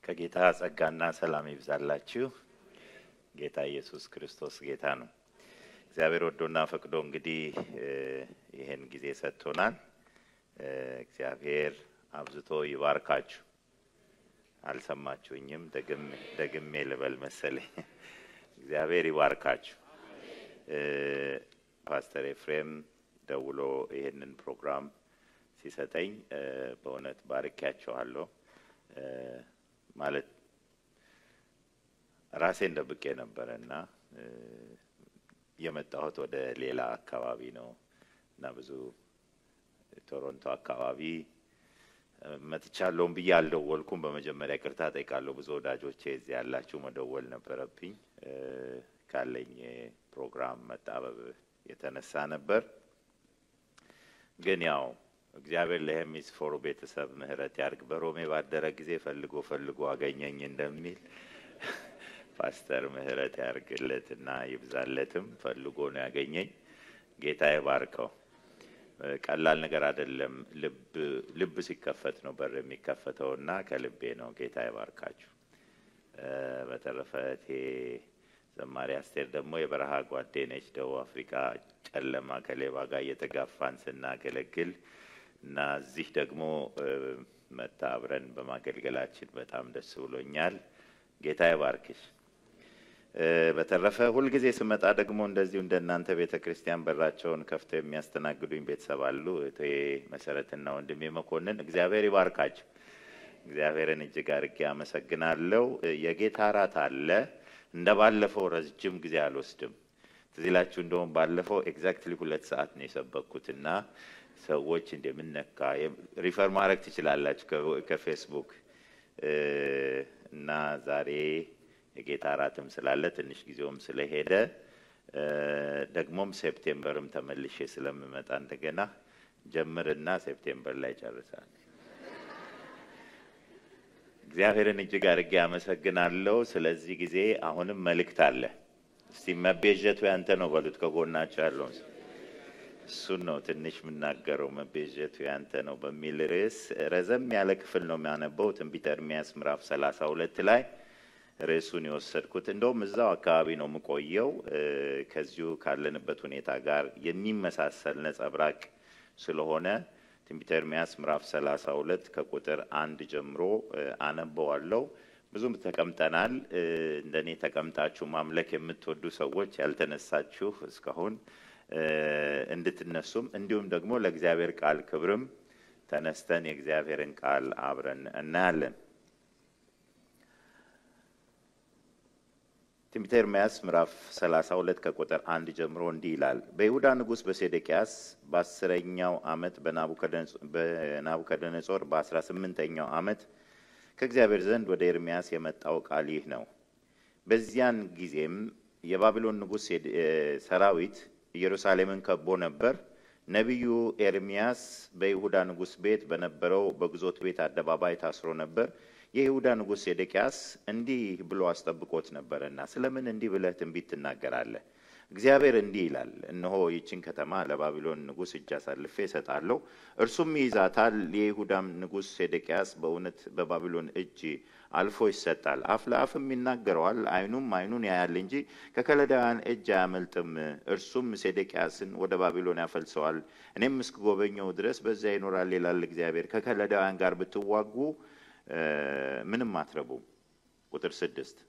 ከጌታ ጸጋና ሰላም ይብዛላችሁ። ጌታ ኢየሱስ ክርስቶስ ጌታ ነው። እግዚአብሔር ወዶና ፈቅዶ እንግዲህ ይሄን ጊዜ ሰጥቶናል። እግዚአብሔር አብዝቶ ይባርካችሁ። አልሰማችሁኝም? ደግሜ ልበል መሰለኝ። እግዚአብሔር ይባርካችሁ። ፓስተር ኤፍሬም ደውሎ ይሄንን ፕሮግራም ሲሰጠኝ በእውነት ባርኪያችኋለሁ። ማለት ራሴን ደብቄ ነበርና የመጣሁት ወደ ሌላ አካባቢ ነው እና ብዙ ቶሮንቶ አካባቢ መጥቻለሁ ብዬ አልደወልኩም። በመጀመሪያ ይቅርታ ጠይቃለሁ። ብዙ ወዳጆቼ እዚህ ያላችሁ መደወል ነበረብኝ። ካለኝ ፕሮግራም መጣበብ የተነሳ ነበር። ግን ያው እግዚአብሔር ለሄሚስፎሩ ቤተሰብ ምህረት ያርግ። በሮሜ ባደረ ጊዜ ፈልጎ አገኘኝ እንደሚል ፓስተር ምህረት ያርግለትና ይብዛለትም። ፈልጎ ነው ያገኘኝ። ጌታ ይባርከው። ቀላል ነገር አይደለም። ልብ ሲከፈት ነው በር የሚከፈተውና ከልቤ ነው። ጌታ ይባርካችሁ። በተረፈ ዘማሪ አስቴር ደግሞ የበረሃ ጓዴ ነች። ደቡብ አፍሪካ ጨለማ ከሌባ ጋር እየተጋፋን ስናገለግል እና እዚህ ደግሞ መታ አብረን በማገልገላችን በጣም ደስ ብሎኛል። ጌታ ይባርክሽ። በተረፈ ሁልጊዜ ስመጣ ደግሞ እንደዚሁ እንደናንተ ቤተክርስቲያን በራቸውን ከፍተው የሚያስተናግዱኝ ቤተሰብ አሉ። እቴ መሰረትና ወንድሜ መኮንን እግዚአብሔር ይባርካችሁ። እግዚአብሔርን እጅግ አድርጌ አመሰግናለሁ። የጌታ እራት አለ። እንደባለፈው ረጅም ጊዜ አልወስድም። ትዝ ይላችሁ እንደውም ባለፈው ኤግዛክትሊ 2 ሰዓት ነው የሰበኩትና ሰዎች እንደምንነካ ሪፈር ማድረግ ትችላላችሁ ከፌስቡክ እና ዛሬ የጌታ እራትም ስላለ ትንሽ ጊዜውም ስለሄደ ደግሞም ሴፕቴምበርም ተመልሼ ስለምመጣ እንደገና ጀምርና ሴፕቴምበር ላይ ጨርሳል። እግዚአብሔርን እጅግ አድርጌ አመሰግናለሁ። ስለዚህ ጊዜ አሁንም መልእክት አለ። እስቲ መቤዠቱ ያንተ ነው በሉት። ከጎናችሁ ያለው እሱን ነው ትንሽ የምናገረው። መቤዠቱ ያንተ ነው በሚል ርዕስ ረዘም ያለ ክፍል ነው የሚያነበው። ትንቢተ ኤርምያስ ምዕራፍ 32 ላይ ርዕሱን የወሰድኩት። እንደውም እዛው አካባቢ ነው የምቆየው። ከዚሁ ካለንበት ሁኔታ ጋር የሚመሳሰል ነጸብራቅ ስለሆነ ትንቢተ ኤርምያስ ምዕራፍ 32 ከቁጥር 1 ጀምሮ አነበዋለሁ። ብዙም ተቀምጠናል። እንደኔ ተቀምጣችሁ ማምለክ የምትወዱ ሰዎች ያልተነሳችሁ እስካሁን እንድትነሱም እንዲሁም ደግሞ ለእግዚአብሔር ቃል ክብርም ተነስተን የእግዚአብሔርን ቃል አብረን እናያለን። ትንቢተ ኤርምያስ ምዕራፍ 32 ከቁጥር 1 ጀምሮ እንዲህ ይላል። በይሁዳ ንጉሥ በሴዴቅያስ በ10ኛው ዓመት በናቡከደነጾር በ18ኛው ዓመት ከእግዚአብሔር ዘንድ ወደ ኤርምያስ የመጣው ቃል ይህ ነው። በዚያን ጊዜም የባቢሎን ንጉሥ ሰራዊት ኢየሩሳሌምን ከቦ ነበር። ነቢዩ ኤርምያስ በይሁዳ ንጉሥ ቤት በነበረው በግዞት ቤት አደባባይ ታስሮ ነበር። የይሁዳ ንጉሥ ሴዴቅያስ እንዲህ ብሎ አስጠብቆት ነበርና ስለምን እንዲህ ብለህ ትንቢት ትናገራለህ? እግዚአብሔር እንዲህ ይላል፣ እነሆ ይህችን ከተማ ለባቢሎን ንጉሥ እጅ አሳልፌ እሰጣለሁ፣ እርሱም ይይዛታል። የይሁዳም ንጉሥ ሴዴቅያስ በእውነት በባቢሎን እጅ አልፎ ይሰጣል። አፍ ለአፍም ይናገረዋል፣ ዓይኑን ያያል እንጂ ከከለዳውያን እጅ አያመልጥም። እርሱም ሴዴቅያስን ወደ ባቢሎን ያፈልሰዋል፣ እኔም እስክጎበኘው ድረስ በዚያ ይኖራል ይላል እግዚአብሔር። ከከለዳውያን ጋር ብትዋጉ ምንም አትረቡም። ቁጥር 6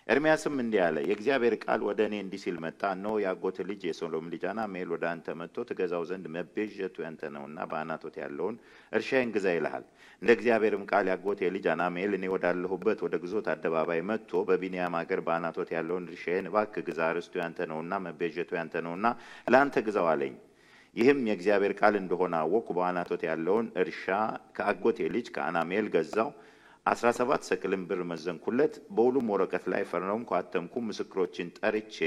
ኤርምያስም እንዲህ አለ፣ የእግዚአብሔር ቃል ወደ እኔ እንዲህ ሲል መጣ። እነሆ የአጎት ልጅ የሰሎም ልጅ አናሜል ወደ አንተ መጥቶ ትገዛው ዘንድ መቤዠቱ ያንተ ነውና በአናቶት ያለውን እርሻዬን ግዛ ይልሃል። እንደ እግዚአብሔርም ቃል የአጎቴ ልጅ አናሜል እኔ ወዳለሁበት ወደ ግዞት አደባባይ መጥቶ በቢንያም አገር በአናቶት ያለውን እርሻዬን እባክህ ግዛ፣ ርስቱ ያንተ ነውና መቤዠቱ ያንተ ነውና ለአንተ ግዛው አለኝ። ይህም የእግዚአብሔር ቃል እንደሆነ አወቅኩ። በአናቶት ያለውን እርሻ ከአጎቴ ልጅ ከአናሜል ገዛው። 17 ሰቅልም ብር መዘንኩለት። በውሉም ወረቀት ላይ ፈርመውም አተምኩም። ምስክሮችን ጠርቼ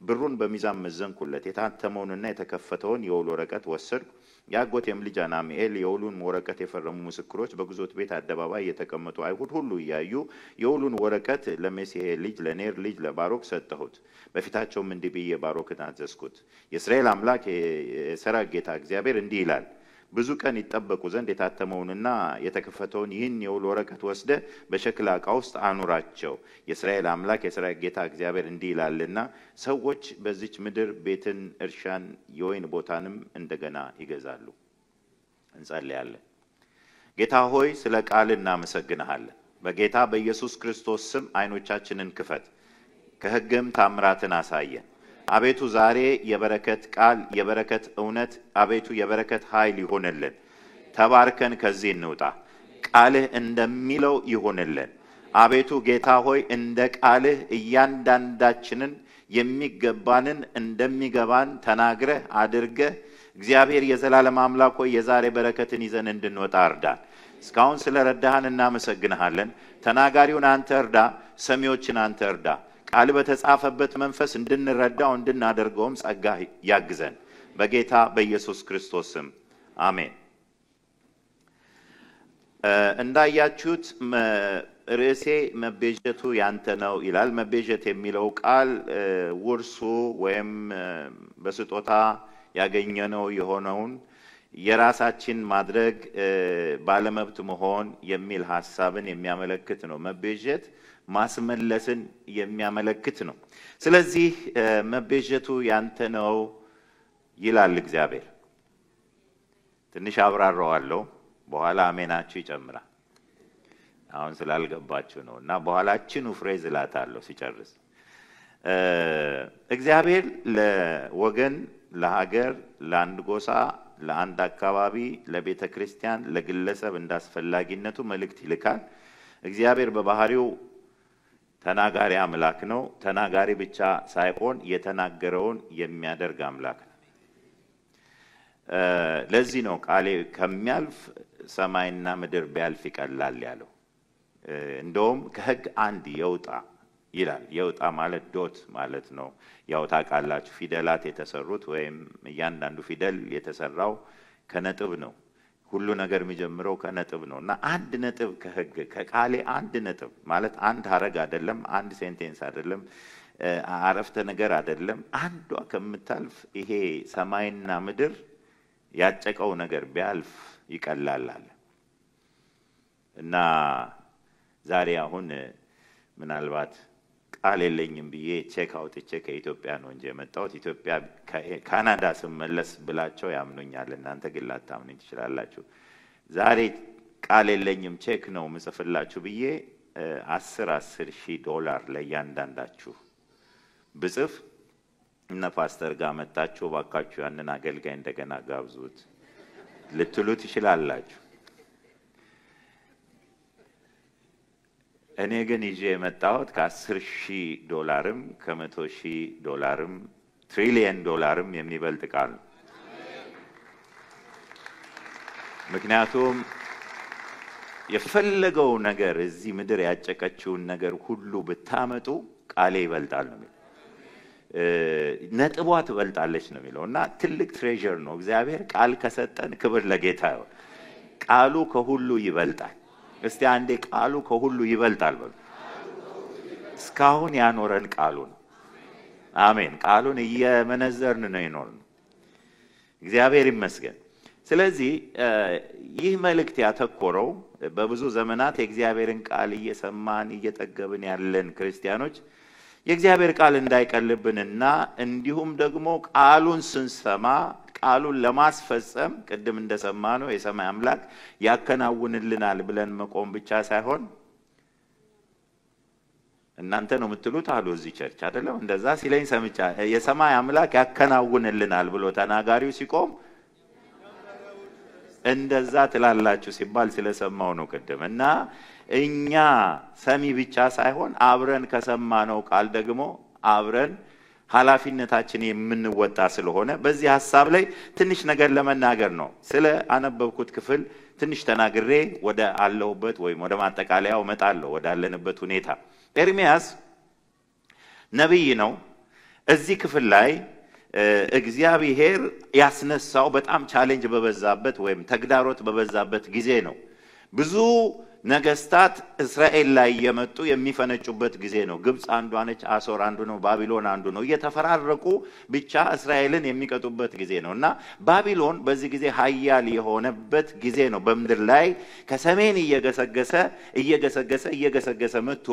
ብሩን በሚዛን መዘንኩለት። የታተመውንና የተከፈተውን የውል ወረቀት ወሰድኩ። የአጎቴም ልጅ አናሜል የውሉን ወረቀት የፈረሙ ምስክሮች በግዞት ቤት አደባባይ የተቀመጡ አይሁድ ሁሉ እያዩ የውሉን ወረቀት ለሜሴሄ ልጅ ለኔር ልጅ ለባሮክ ሰጠሁት። በፊታቸውም እንዲህ ብዬ ባሮክን አዘዝኩት። የእስራኤል አምላክ የሠራዊት ጌታ እግዚአብሔር እንዲህ ይላል፣ ብዙ ቀን ይጠበቁ ዘንድ የታተመውንና የተከፈተውን ይህን የውል ወረቀት ወስደ በሸክላ ዕቃ ውስጥ አኑራቸው። የእስራኤል አምላክ የእስራኤል ጌታ እግዚአብሔር እንዲህ ይላልና ሰዎች በዚች ምድር ቤትን፣ እርሻን፣ የወይን ቦታንም እንደገና ይገዛሉ። እንጸልያለን። ጌታ ሆይ ስለ ቃል እናመሰግንሃለን። በጌታ በኢየሱስ ክርስቶስ ስም አይኖቻችንን ክፈት፣ ከሕግም ታምራትን አሳየን። አቤቱ ዛሬ የበረከት ቃል፣ የበረከት እውነት፣ አቤቱ የበረከት ኃይል ይሆንልን። ተባርከን ከዚህ እንውጣ። ቃልህ እንደሚለው ይሆንልን። አቤቱ ጌታ ሆይ እንደ ቃልህ እያንዳንዳችንን የሚገባንን እንደሚገባን ተናግረህ አድርገህ እግዚአብሔር የዘላለም አምላክ ሆይ የዛሬ በረከትን ይዘን እንድንወጣ እርዳን። እስካሁን ስለረዳህን እናመሰግንሃለን። ተናጋሪውን አንተ እርዳ፣ ሰሚዎችን አንተ እርዳ። ቃል በተጻፈበት መንፈስ እንድንረዳው እንድናደርገውም ጸጋ ያግዘን። በጌታ በኢየሱስ ክርስቶስ ስም አሜን። እንዳያችሁት ርዕሴ መቤዠቱ ያንተ ነው ይላል። መቤዠት የሚለው ቃል ውርሱ ወይም በስጦታ ያገኘነው የሆነውን የራሳችን ማድረግ ባለመብት መሆን የሚል ሐሳብን የሚያመለክት ነው። መቤዠት ማስመለስን የሚያመለክት ነው። ስለዚህ መቤዠቱ ያንተ ነው ይላል እግዚአብሔር። ትንሽ አብራራዋለሁ፣ በኋላ አሜናችሁ ይጨምራል። አሁን ስላልገባችሁ ነው እና በኋላችን ፍሬዝ እላታለሁ ሲጨርስ። እግዚአብሔር ለወገን፣ ለሀገር፣ ለአንድ ጎሳ፣ ለአንድ አካባቢ፣ ለቤተ ክርስቲያን፣ ለግለሰብ እንዳስፈላጊነቱ መልእክት ይልካል። እግዚአብሔር በባህሪው ተናጋሪ አምላክ ነው። ተናጋሪ ብቻ ሳይሆን የተናገረውን የሚያደርግ አምላክ ነው። ለዚህ ነው ቃሌ ከሚያልፍ ሰማይና ምድር ቢያልፍ ይቀላል ያለው። እንደውም ከሕግ አንድ የውጣ ይላል። የውጣ ማለት ዶት ማለት ነው። ያው ታውቃላችሁ ፊደላት የተሰሩት ወይም እያንዳንዱ ፊደል የተሰራው ከነጥብ ነው። ሁሉ ነገር የሚጀምረው ከነጥብ ነው እና አንድ ነጥብ ከሕግ ከቃሌ አንድ ነጥብ ማለት አንድ ሐረግ አይደለም፣ አንድ ሴንቴንስ አይደለም፣ አረፍተ ነገር አይደለም። አንዷ ከምታልፍ ይሄ ሰማይና ምድር ያጨቀው ነገር ቢያልፍ ይቀላል አለ እና ዛሬ አሁን ምናልባት ቃል የለኝም ብዬ ቼክ አውጥቼ ከኢትዮጵያ ነው እንጂ የመጣሁት ኢትዮጵያ ካናዳ ስመለስ ብላቸው ያምኑኛል። እናንተ ግን ላታምኑኝ ትችላላችሁ። ዛሬ ቃል የለኝም ቼክ ነው ምጽፍላችሁ ብዬ $10,000 ለእያንዳንዳችሁ ብጽፍ እነ ፓስተር ጋር መጣችሁ ባካችሁ ያንን አገልጋይ እንደገና ጋብዙት ልትሉ ትችላላችሁ። እኔ ግን ይዤ የመጣሁት $10,000 $100,000 $1,000,000,000 የሚበልጥ ቃል ነው። ምክንያቱም የፈለገው ነገር እዚህ ምድር ያጨቀችውን ነገር ሁሉ ብታመጡ ቃሌ ይበልጣል ነው የሚለው። ነጥቧ ትበልጣለች ነው የሚለው እና ትልቅ ትሬዠር ነው። እግዚአብሔር ቃል ከሰጠን ክብር ለጌታ ይሁን። ቃሉ ከሁሉ ይበልጣል። እስቲ አንዴ ቃሉ ከሁሉ ይበልጣል በሉ። እስካሁን ያኖረን ቃሉ ነው። አሜን። ቃሉን እየመነዘርን ነው የኖርነው። እግዚአብሔር ይመስገን። ስለዚህ ይህ መልእክት ያተኮረው በብዙ ዘመናት የእግዚአብሔርን ቃል እየሰማን እየጠገብን ያለን ክርስቲያኖች የእግዚአብሔር ቃል እንዳይቀልብንና እንዲሁም ደግሞ ቃሉን ስንሰማ ቃሉን ለማስፈጸም ቅድም እንደሰማነው የሰማይ አምላክ ያከናውንልናል ብለን መቆም ብቻ ሳይሆን እናንተ ነው የምትሉት አሉ እዚህ ቸርች አይደለም እንደዛ ሲለኝ ሰምቻ የሰማይ አምላክ ያከናውንልናል ብሎ ተናጋሪው ሲቆም እንደዛ ትላላችሁ ሲባል ስለሰማው ነው ቅድም እና እኛ ሰሚ ብቻ ሳይሆን አብረን ከሰማነው ቃል ደግሞ አብረን ኃላፊነታችን የምንወጣ ስለሆነ በዚህ ሐሳብ ላይ ትንሽ ነገር ለመናገር ነው። ስለ አነበብኩት ክፍል ትንሽ ተናግሬ ወደ አለሁበት ወይም ወደ ማጠቃለያው መጣለሁ ወደ አለንበት ሁኔታ። ኤርሚያስ ነብይ ነው። እዚህ ክፍል ላይ እግዚአብሔር ያስነሳው በጣም ቻሌንጅ በበዛበት ወይም ተግዳሮት በበዛበት ጊዜ ነው። ብዙ ነገስታት እስራኤል ላይ የመጡ የሚፈነጩበት ጊዜ ነው። ግብጽ አንዷ ነች፣ አሶር አንዱ ነው፣ ባቢሎን አንዱ ነው። እየተፈራረቁ ብቻ እስራኤልን የሚቀጡበት ጊዜ ነውና ባቢሎን በዚህ ጊዜ ኃያል የሆነበት ጊዜ ነው። በምድር ላይ ከሰሜን እየገሰገሰ መጥቶ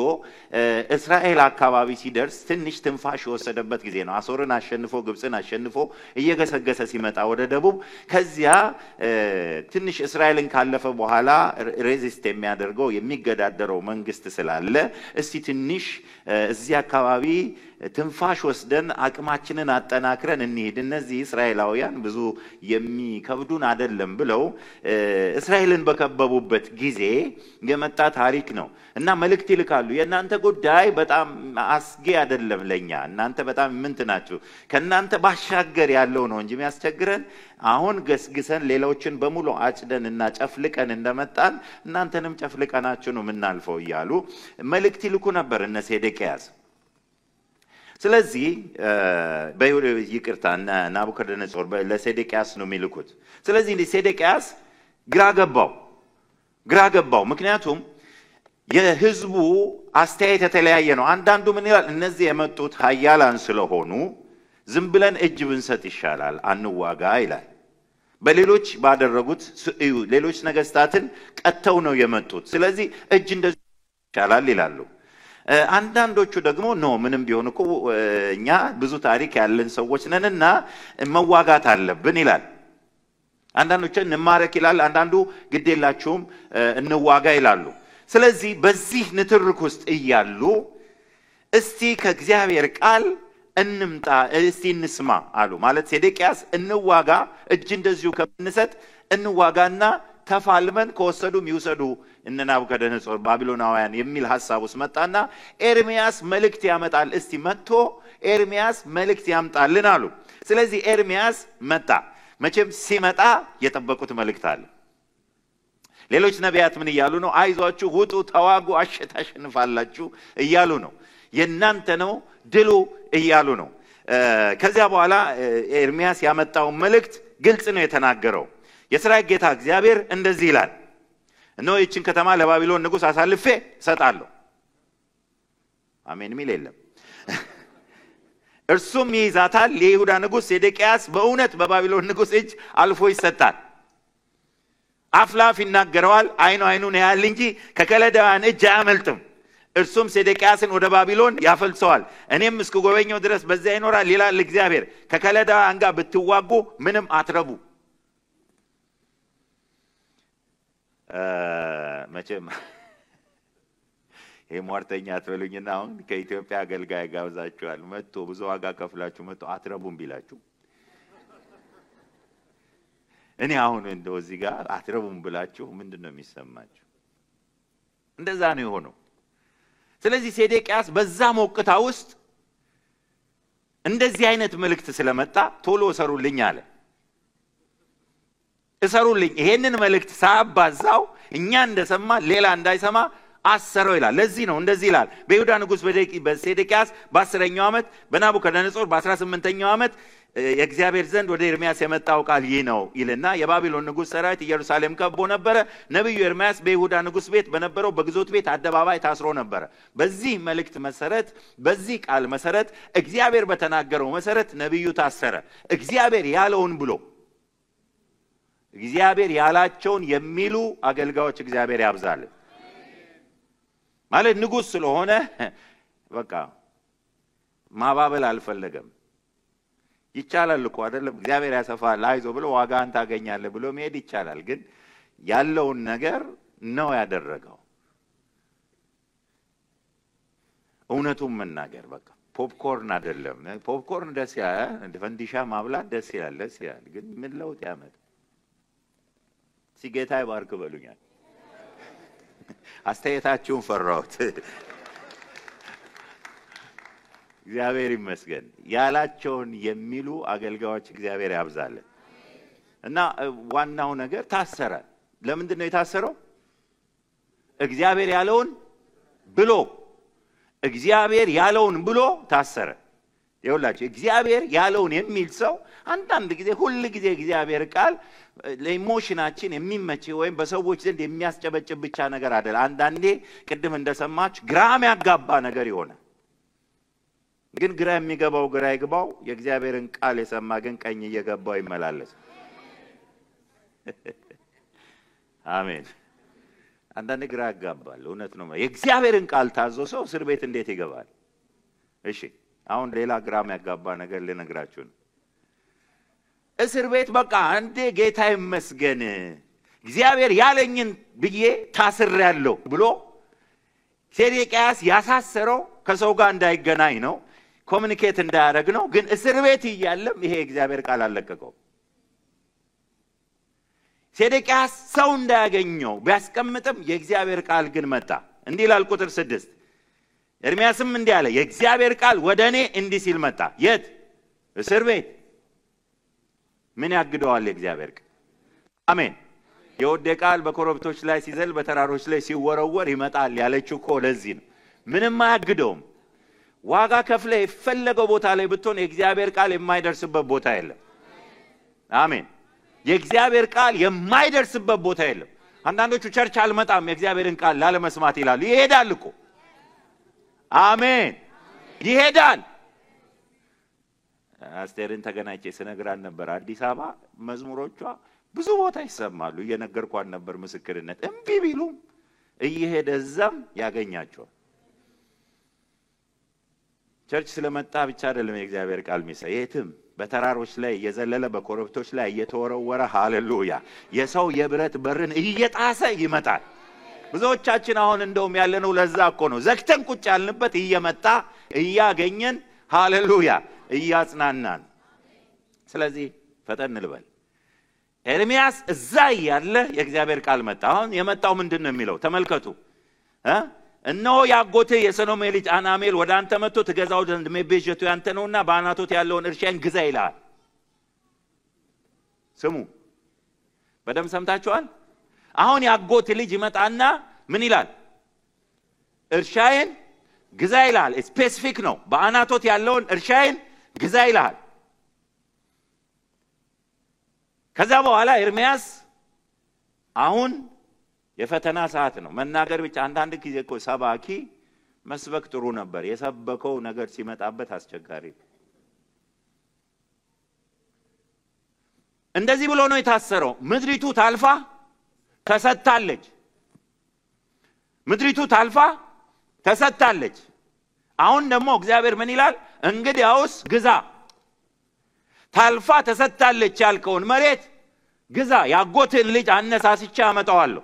እስራኤል አካባቢ ሲደርስ ትንሽ ትንፋሽ የወሰደበት ጊዜ ነው። አሶርን አሸንፎ ግብጽን አሸንፎ እየገሰገሰ ሲመጣ ወደ ደቡብ ከዚያ ትንሽ እስራኤልን ካለፈ በኋላ ሬዚስት የሚያደርገው የሚገዳደረው መንግስት ስላለ እስቲ ትንሽ እዚህ አካባቢ ትንፋሽ ወስደን አቅማችንን አጠናክረን እንሂድ፣ እነዚህ እስራኤላውያን ብዙ የሚከብዱን አይደለም ብለው እስራኤልን በከበቡበት ጊዜ የመጣ ታሪክ ነው እና መልእክት ይልካሉ። የእናንተ ጉዳይ በጣም አስጊ አይደለም ለኛ፣ እናንተ በጣም ምንት ናችሁ፣ ከእናንተ ባሻገር ያለው ነው እንጂ የሚያስቸግረን አሁን ገስግሰን ሌሎችን በሙሉ አጭደን እና ጨፍልቀን እንደመጣን እናንተንም ጨፍልቀናችሁ ነው የምናልፈው እያሉ መልእክት ይልኩ ነበር እነ ሴዴቅያስ። ስለዚህ ይቅርታ ናቡከደነጾር ለሴዴቅያስ ነው የሚልኩት። ስለዚህ ሴዴቅያስ ግራ ገባው። ምክንያቱም የህዝቡ አስተያየት የተለያየ ነው። አንዳንዱ ምን ይላል? እነዚህ የመጡት ኃያላን ስለሆኑ ዝም ብለን እጅ ብንሰጥ ይሻላል፣ አንዋጋ ይላል። በሌሎች ባደረጉት ሌሎች ነገስታትን ቀጥተው ነው የመጡት፣ ስለዚህ እጅ እንደዚህ ይሻላል ይላሉ። አንዳንዶቹ ደግሞ ምንም ቢሆን እኮ እኛ ብዙ ታሪክ ያለን ሰዎች ነንና መዋጋት አለብን ይላል። አንዳንዶቹ እንማረክ ይላል፣ አንዳንዱ ግዴላችሁም እንዋጋ ይላሉ። ስለዚህ በዚህ ንትርክ ውስጥ እያሉ እስቲ ከእግዚአብሔር ቃል እንምጣ፣ እስቲ እንስማ አሉ። ማለት ሴዴቅያስ እንዋጋ፣ እጅ እንደዚሁ ከምንሰጥ እንዋጋና ተፋልመን ከወሰዱም ይውሰዱ እነ ናቡከደነጾር ባቢሎናውያን የሚል ሐሳብ ውስጥ መጣና ኤርሚያስ መልእክት ያመጣል። እስቲ መጥቶ ኤርሚያስ መልእክት ያምጣልን አሉ። ስለዚህ ኤርሚያስ መጣ። መቼም ሲመጣ የጠበቁት መልእክት አለ። ሌሎች ነቢያት ምን እያሉ ነው? አይዟችሁ፣ ውጡ፣ ተዋጉ፣ ታሸንፋላችሁ እያሉ ነው። የእናንተ ነው ድሉ እያሉ ነው። ከዚያ በኋላ ኤርሚያስ ያመጣው መልእክት ግልጽ ነው የተናገረው። የሰራዊት ጌታ እግዚአብሔር እንደዚህ ይላል፣ እነሆ ይህችን ከተማ ለባቢሎን ንጉሥ አሳልፌ እሰጣለሁ። አሜን የሚል የለም። እርሱም ይይዛታል። የይሁዳ ንጉሥ ሴዴቅያስ በእውነት በባቢሎን ንጉሥ እጅ አልፎ ይሰጣል። አፍላፍ ይናገረዋል፣ አይኑን ያያል እንጂ ከከለዳውያን እጅ አያመልጥም። እርሱም ሴዴቅያስን ወደ ባቢሎን ያፈልሰዋል፣ እኔም እስክጎበኘው ድረስ በዚያ ይኖራል ይላል እግዚአብሔር። ከከለዳውያን ጋር ብትዋጉ ምንም አትረቡ። መቼም ይሄ ሟርተኛ አትበሉኝና አሁን ከኢትዮጵያ አገልጋይ ጋብዛችኋል፣ መጥቶ ብዙ ዋጋ ከፍላችሁ መጥቶ አትረቡም ቢላችሁ እኔ አሁን እንደው እዚህ ጋር አትረቡም ብላችሁ ምንድነው የሚሰማችሁ? እንደዛ ነው የሆነው። ስለዚህ ሴዴቅያስ በዛ ሞቅታ ውስጥ እንደዚህ አይነት መልእክት ስለመጣ ቶሎ እሰሩልኝ አለ። እሰሩልኝ፣ ይሄንን መልእክት ሳባዛው እኛ እንደሰማ ሌላ እንዳይሰማ አሰረው ይላል። ለዚህ ነው እንደዚህ ይላል። በይሁዳ ንጉሥ በሴዴቅያስ በ10ኛው ዓመት በናቡከደነጾር በ18ኛው ዓመት የእግዚአብሔር ዘንድ ወደ ኤርሚያስ የመጣው ቃል ይህ ነው ይልና የባቢሎን ንጉሥ ሰራዊት ኢየሩሳሌም ከቦ ነበረ። ነብዩ ኤርሚያስ በይሁዳ ንጉሥ ቤት በነበረው በግዞት ቤት አደባባይ ታስሮ ነበረ። በዚህ መልእክት መሰረት፣ በዚህ ቃል መሰረት፣ እግዚአብሔር በተናገረው መሰረት ነብዩ ታሰረ። እግዚአብሔር ያለውን ብሎ እግዚአብሔር ያላቸውን የሚሉ አገልጋዮች እግዚአብሔር ያብዛልን። ማለት ንጉሥ ስለሆነ በቃ ማባበል አልፈለገም። ይቻላል እኮ አይደለም? እግዚአብሔር ያሰፋል አይዞ ብሎ ዋጋን ታገኛለህ ብሎ መሄድ ይቻላል። ግን ያለውን ነገር ነው ያደረገው። እውነቱን መናገር በቃ ፖፕኮርን አይደለም። ፖፕኮርን ደስ ይላል፣ እንደ ፈንዲሻ ማብላት ደስ ይላል። ግን ምን ለውጥ ያመጣ? ሲጌታ ይባርክ በሉኛል። አስተያየታችሁን ፈራሁት። እግዚአብሔር ይመስገን። ያላቸውን የሚሉ አገልጋዮች እግዚአብሔር ያብዛልን። እና ዋናው ነገር ታሰረ። ለምንድን ነው የታሰረው? እግዚአብሔር ያለውን ብሎ ታሰረ። ይኸውላችሁ እግዚአብሔር ያለውን የሚል ሰው አንዳንድ ጊዜ ሁሉ ጊዜ እግዚአብሔር ቃል ለኢሞሽናችን የሚመች ወይም በሰዎች ዘንድ የሚያስጨበጭብ ብቻ ነገር አይደለም። አንዳንዴ ቅድም እንደሰማች ግራም ያጋባ ነገር ይሆናል። ግን ግራ የሚገባው ግራ ይግባው፣ የእግዚአብሔርን ቃል የሰማ ግን ቀኝ እየገባው ይመላለስ። አሜን። አንዳንዴ ግራ ያጋባል። እውነት ነው። የእግዚአብሔርን ቃል ታዞ ሰው እስር ቤት እንዴት ይገባል? እሺ አሁን ሌላ ግራም ያጋባ ነገር ልነግራችሁ ነው። እስር ቤት በቃ አንዴ ጌታ ይመስገን እግዚአብሔር ያለኝን ብዬ ታስሬያለሁ ብሎ ሴዴቅያስ ያሳሰረው ከሰው ጋር እንዳይገናኝ ነው፣ ኮሙኒኬት እንዳያደርግ ነው። ግን እስር ቤት እያለም ይሄ እግዚአብሔር ቃል አለቀቀው። ሴዴቅያስ ሰው እንዳያገኘው ቢያስቀምጥም የእግዚአብሔር ቃል ግን መጣ። እንዲህ ይላል ቁጥር 6 ኤርምያስም እንዲህ አለ፣ የእግዚአብሔር ቃል ወደኔ እንዲህ ሲል መጣ። የት? እስር ቤት። ምን ያግደዋል የእግዚአብሔር ቃል? አሜን። የወዴ ቃል በኮረብቶች ላይ ሲዘል በተራሮች ላይ ሲወረወር ይመጣል ያለችው እኮ ለዚህ ነው። ምንም አያግደውም። ዋጋ ከፍለ የፈለገው ቦታ ላይ ብትሆን የእግዚአብሔር ቃል የማይደርስበት ቦታ የለም። አሜን። የእግዚአብሔር ቃል የማይደርስበት ቦታ የለም። አንዳንዶቹ ቸርች አልመጣም የእግዚአብሔርን ቃል ላለመስማት ይላሉ። ይሄዳል እኮ። አሜን። ይሄዳል። አስቴርን ተገናኝቼ ስነግራን ነበር። አዲስ አበባ መዝሙሮቿ ብዙ ቦታ ይሰማሉ። እየነገርኳን ነበር ምስክርነት። እምቢ ቢሉም እየሄደ እዛም ያገኛቸዋል። ቸርች ስለመጣ ብቻ አይደለም የእግዚአብሔር ቃል የሚሰራ። የትም በተራሮች ላይ እየዘለለ በኮረብቶች ላይ እየተወረወረ ሃሌሉያ የሰው የብረት በርን እየጣሰ ይመጣል። ብዙዎቻችን አሁን እንደውም ያለነው ለዛ እኮ ነው። ዘግተን ቁጭ ያልንበት እየመጣ እያገኘን ሃሌሉያ እያጽናናን። ስለዚህ ፈጠን ልበል። ኤርምያስ እዛ ያለ የእግዚአብሔር ቃል መጣ። አሁን የመጣው ምንድነው የሚለው ተመልከቱ። እነሆ ያጎትህ የሰሎሜ ልጅ አናሜል ወደ አንተ መጥቶ ትገዛው ዘንድ መቤዠቱ ያንተ ነውና በአናቶት ያለውን እርሻን ግዛ ይላል። ስሙ፣ በደም ሰምታችኋል። አሁን ያጎት ልጅ ይመጣና ምን ይላል? እርሻዬን ግዛ ይላል። ስፔሲፊክ ነው። በአናቶት ያለውን እርሻዬን ግዛ ይላል። ከዛ በኋላ ኤርምያስ አሁን የፈተና ሰዓት ነው። መናገር ብቻ አንዳንድ ጊዜ እኮ ሰባኪ መስበክ ጥሩ ነበር። የሰበከው ነገር ሲመጣበት አስቸጋሪ። እንደዚህ ብሎ ነው የታሰረው። ምድሪቱ ታልፋ ተሰጣለች። ምድሪቱ ታልፋ ተሰጣለች። አሁን ደግሞ እግዚአብሔር ምን ይላል? እንግዲያውስ ግዛ። ታልፋ ተሰጣለች ያልከውን መሬት ግዛ። ያጎትን ልጅ አነሳስቼ አመጣዋለሁ።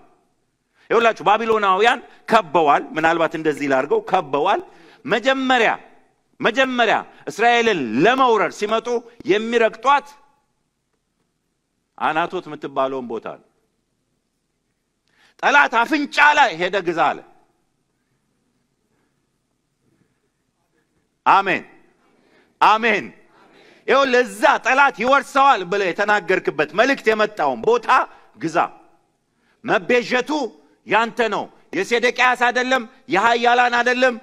ይኸውላችሁ ባቢሎናውያን ከበዋል። ምናልባት እንደዚህ ላርገው ከበዋል። መጀመሪያ እስራኤልን ለመውረር ሲመጡ የሚረግጧት አናቶት የምትባለውን ቦታ ነው። ጠላት አፍንጫ ላይ ሄደ ግዛ አለ። አሜን አሜን። ይኸው ለዛ ጠላት ይወርሰዋል ብለህ የተናገርክበት መልእክት የመጣውን ቦታ ግዛ። መቤዠቱ ያንተ ነው። የሴዴቅያስ አይደለም፣ የሃያላን አይደለም።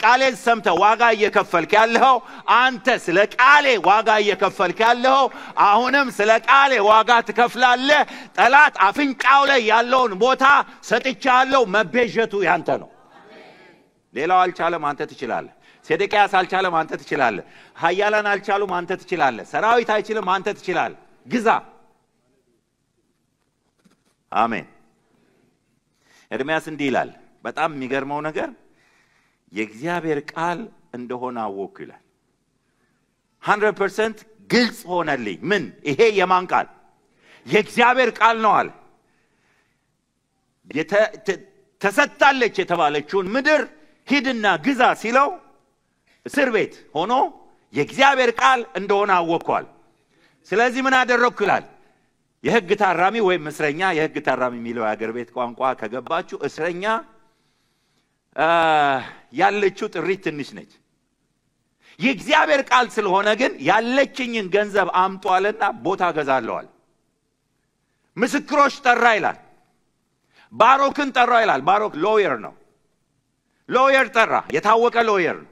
ቃሌን ሰምተህ ዋጋ እየከፈልክ ያለው አንተ። ስለ ቃሌ ዋጋ እየከፈልክ ያለው አሁንም ስለ ቃሌ ዋጋ ትከፍላለህ። ጠላት አፍንጫው ላይ ያለውን ቦታ ሰጥቻለሁ። መቤዠቱ ያንተ ነው። ሌላው አልቻለም፣ አንተ ትችላለህ። ሴዴቅያስ አልቻለም፣ አንተ ትችላለህ። ሃያላን አልቻሉም፣ አንተ ትችላለህ። ሰራዊት አይችልም፣ አንተ ትችላለህ። ግዛ። አሜን። ኤርምያስ እንዲህ ይላል። በጣም የሚገርመው ነገር የእግዚአብሔር ቃል እንደሆነ አወኩ ይላል። 100% ግልጽ ሆነልኝ። ምን? ይሄ የማን ቃል? የእግዚአብሔር ቃል ነው አለ። ተሰጣለች የተባለችውን ምድር ሂድና ግዛ ሲለው እስር ቤት ሆኖ የእግዚአብሔር ቃል እንደሆነ አወኳል። ስለዚህ ምን አደረኩ ይላል? የሕግ ታራሚ ወይም እስረኛ፣ የሕግ ታራሚ የሚለው የአገር ቤት ቋንቋ ከገባችሁ እስረኛ ያለችው ጥሪት ትንሽ ነች። የእግዚአብሔር ቃል ስለሆነ ግን ያለችኝን ገንዘብ አምጧልና ቦታ ገዛለዋል። ምስክሮች ጠራ ይላል። ባሮክን ጠራ ይላል። ባሮክ ሎየር ነው። ሎየር ጠራ፣ የታወቀ ሎየር ነው።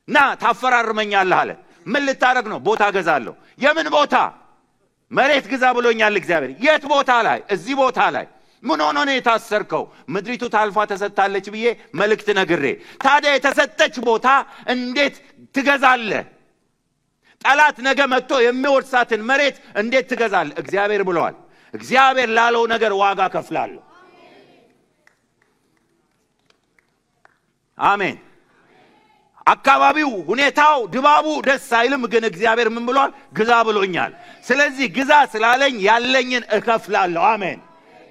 ና ታፈራርመኛለህ አለ። ምን ልታረግ ነው? ቦታ ገዛለሁ። የምን ቦታ? መሬት ግዛ ብሎኛል እግዚአብሔር። የት ቦታ ላይ? እዚህ ቦታ ላይ። ምን ሆኖ ነው የታሰርከው? ምድሪቱ ታልፋ ተሰጣለች ብዬ መልእክት ነግሬ። ታዲያ የተሰጠች ቦታ እንዴት ትገዛለህ? ጠላት ነገ መጥቶ የሚወርሳትን መሬት እንዴት ትገዛለህ? እግዚአብሔር ብለዋል። እግዚአብሔር ላለው ነገር ዋጋ ከፍላለሁ። አሜን። አካባቢው፣ ሁኔታው፣ ድባቡ ደስ አይልም፣ ግን እግዚአብሔር ምን ብሏል? ግዛ ብሎኛል። ስለዚህ ግዛ ስላለኝ ያለኝን እከፍላለሁ። አሜን።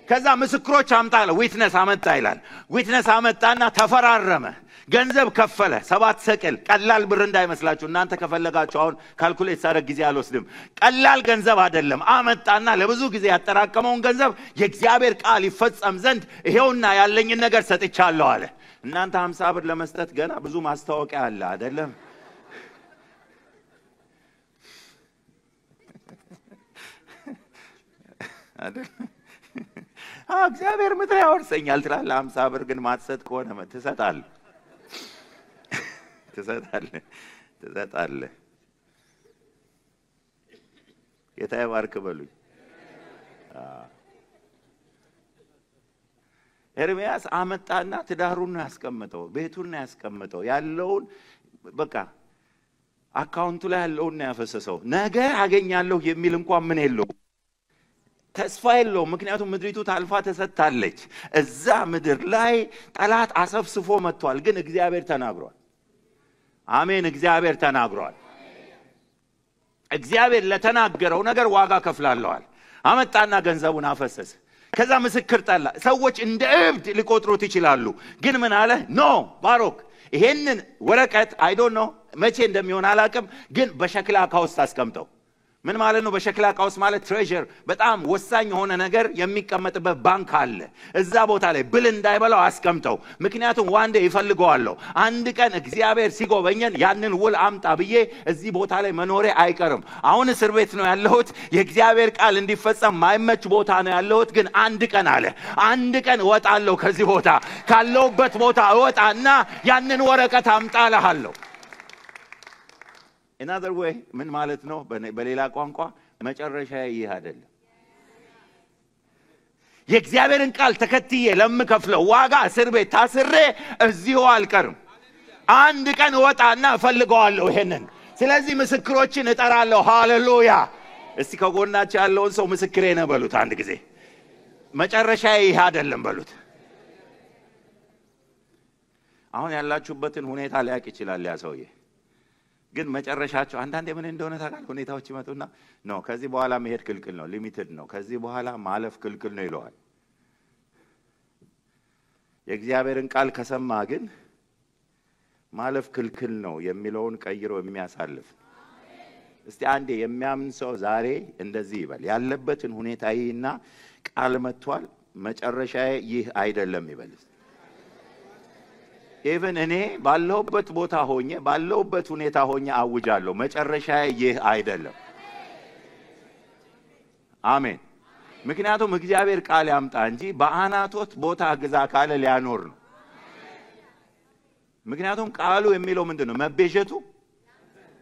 ከዛ ምስክሮች አምጣለ። ዊትነስ አመጣ ይላል። ዊትነስ አመጣና ተፈራረመ። ገንዘብ ከፈለ። 7 ሰቅል። ቀላል ብር እንዳይመስላችሁ እናንተ። ከፈለጋችሁ አሁን ካልኩሌት ሳደርግ ጊዜ አልወስድም። ቀላል ገንዘብ አይደለም። አመጣና ለብዙ ጊዜ ያጠራቀመውን ገንዘብ የእግዚአብሔር ቃል ይፈጸም ዘንድ ይሄውና ያለኝን ነገር ሰጥቻለሁ አለ። እናንተ 50 ብር ለመስጠት ገና ብዙ ማስታወቂያ አለ አይደለም? አይደል? እግዚአብሔር ምድር ያወርሰኛል ትላለህ። 50 ብር ግን ማትሰጥ ከሆነ ትሰጣለህ። ጌታ ይባርክ በሉኝ። ኤርምያስ አመጣና ትዳሩን ነው ያስቀመጠው፣ ቤቱን ነው ያስቀመጠው፣ ያለውን በቃ አካውንቱ ላይ ያለውን ነው ያፈሰሰው። ነገ አገኛለሁ የሚል እንኳን ምን የለው፣ ተስፋ የለው። ምክንያቱም ምድሪቱ ታልፋ ተሰጣለች። እዛ ምድር ላይ ጠላት አሰፍስፎ መጥቷል። ግን እግዚአብሔር ተናግሯል። አሜን። እግዚአብሔር ተናግሯል። እግዚአብሔር ለተናገረው ነገር ዋጋ ከፍላለዋል። አመጣና ገንዘቡን አፈሰሰ። ከዛ ምስክር ጠላ። ሰዎች እንደ እብድ ሊቆጥሩት ይችላሉ። ግን ምን አለ? ኖ ባሮክ፣ ይሄንን ወረቀት አይ ዶንት ኖ መቼ እንደሚሆን አላቅም፣ ግን በሸክላ ዕቃ ውስጥ አስቀምጠው። ምን ማለት ነው? በሸክላ ዕቃ ውስጥ ማለት ትሬዠር፣ በጣም ወሳኝ የሆነ ነገር የሚቀመጥበት ባንክ አለ። እዛ ቦታ ላይ ብል እንዳይበላው አስቀምጠው። ምክንያቱም ዋንዴ ይፈልገዋለሁ። አንድ ቀን እግዚአብሔር ሲጎበኘን ያንን ውል አምጣ ብዬ እዚህ ቦታ ላይ መኖሬ አይቀርም። አሁን እስር ቤት ነው ያለሁት። የእግዚአብሔር ቃል እንዲፈጸም ማይመች ቦታ ነው ያለሁት። ግን አንድ ቀን አለ፣ አንድ ቀን እወጣለሁ ከዚህ ቦታ። ካለሁበት ቦታ እወጣና ያንን ወረቀት አምጣልሃለሁ። in other way ምን ማለት ነው? በሌላ ቋንቋ መጨረሻ ይህ አይደለም። የእግዚአብሔርን ቃል ተከትዬ ለምከፍለው ዋጋ እስር ቤት ታስሬ እዚሁ አልቀርም። አንድ ቀን እወጣና እፈልገዋለሁ ይሄንን። ስለዚህ ምስክሮችን እጠራለሁ። ሃሌሉያ! እስቲ ከጎናችሁ ያለውን ሰው ምስክሬ ነው በሉት አንድ ጊዜ። መጨረሻ ይህ አይደለም በሉት። አሁን ያላችሁበትን ሁኔታ ሊያቅ ይችላል ያ ሰውዬ። ግን መጨረሻቸው አንዳንዴ ምን እንደሆነ ታውቃለህ? ሁኔታዎች ይመጡና ነው ከዚህ በኋላ መሄድ ክልክል ነው፣ ሊሚትድ ነው፣ ከዚህ በኋላ ማለፍ ክልክል ነው ይለዋል። የእግዚአብሔርን ቃል ከሰማ ግን ማለፍ ክልክል ነው የሚለውን ቀይሮ የሚያሳልፍ። እስቲ አንዴ የሚያምን ሰው ዛሬ እንደዚህ ይበል። ያለበትን ሁኔታ ይህና ቃል መጥቷል፣ መጨረሻዬ ይህ አይደለም ይበል። ኢቭን እኔ ባለሁበት ቦታ ሆኜ ባለሁበት ሁኔታ ሆኜ አውጃለሁ፣ መጨረሻዬ ይህ አይደለም። አሜን። ምክንያቱም እግዚአብሔር ቃል ያምጣ እንጂ በአናቶት ቦታ ግዛ ካለ ሊያኖር ነው። ምክንያቱም ቃሉ የሚለው ምንድነው? መቤዠቱ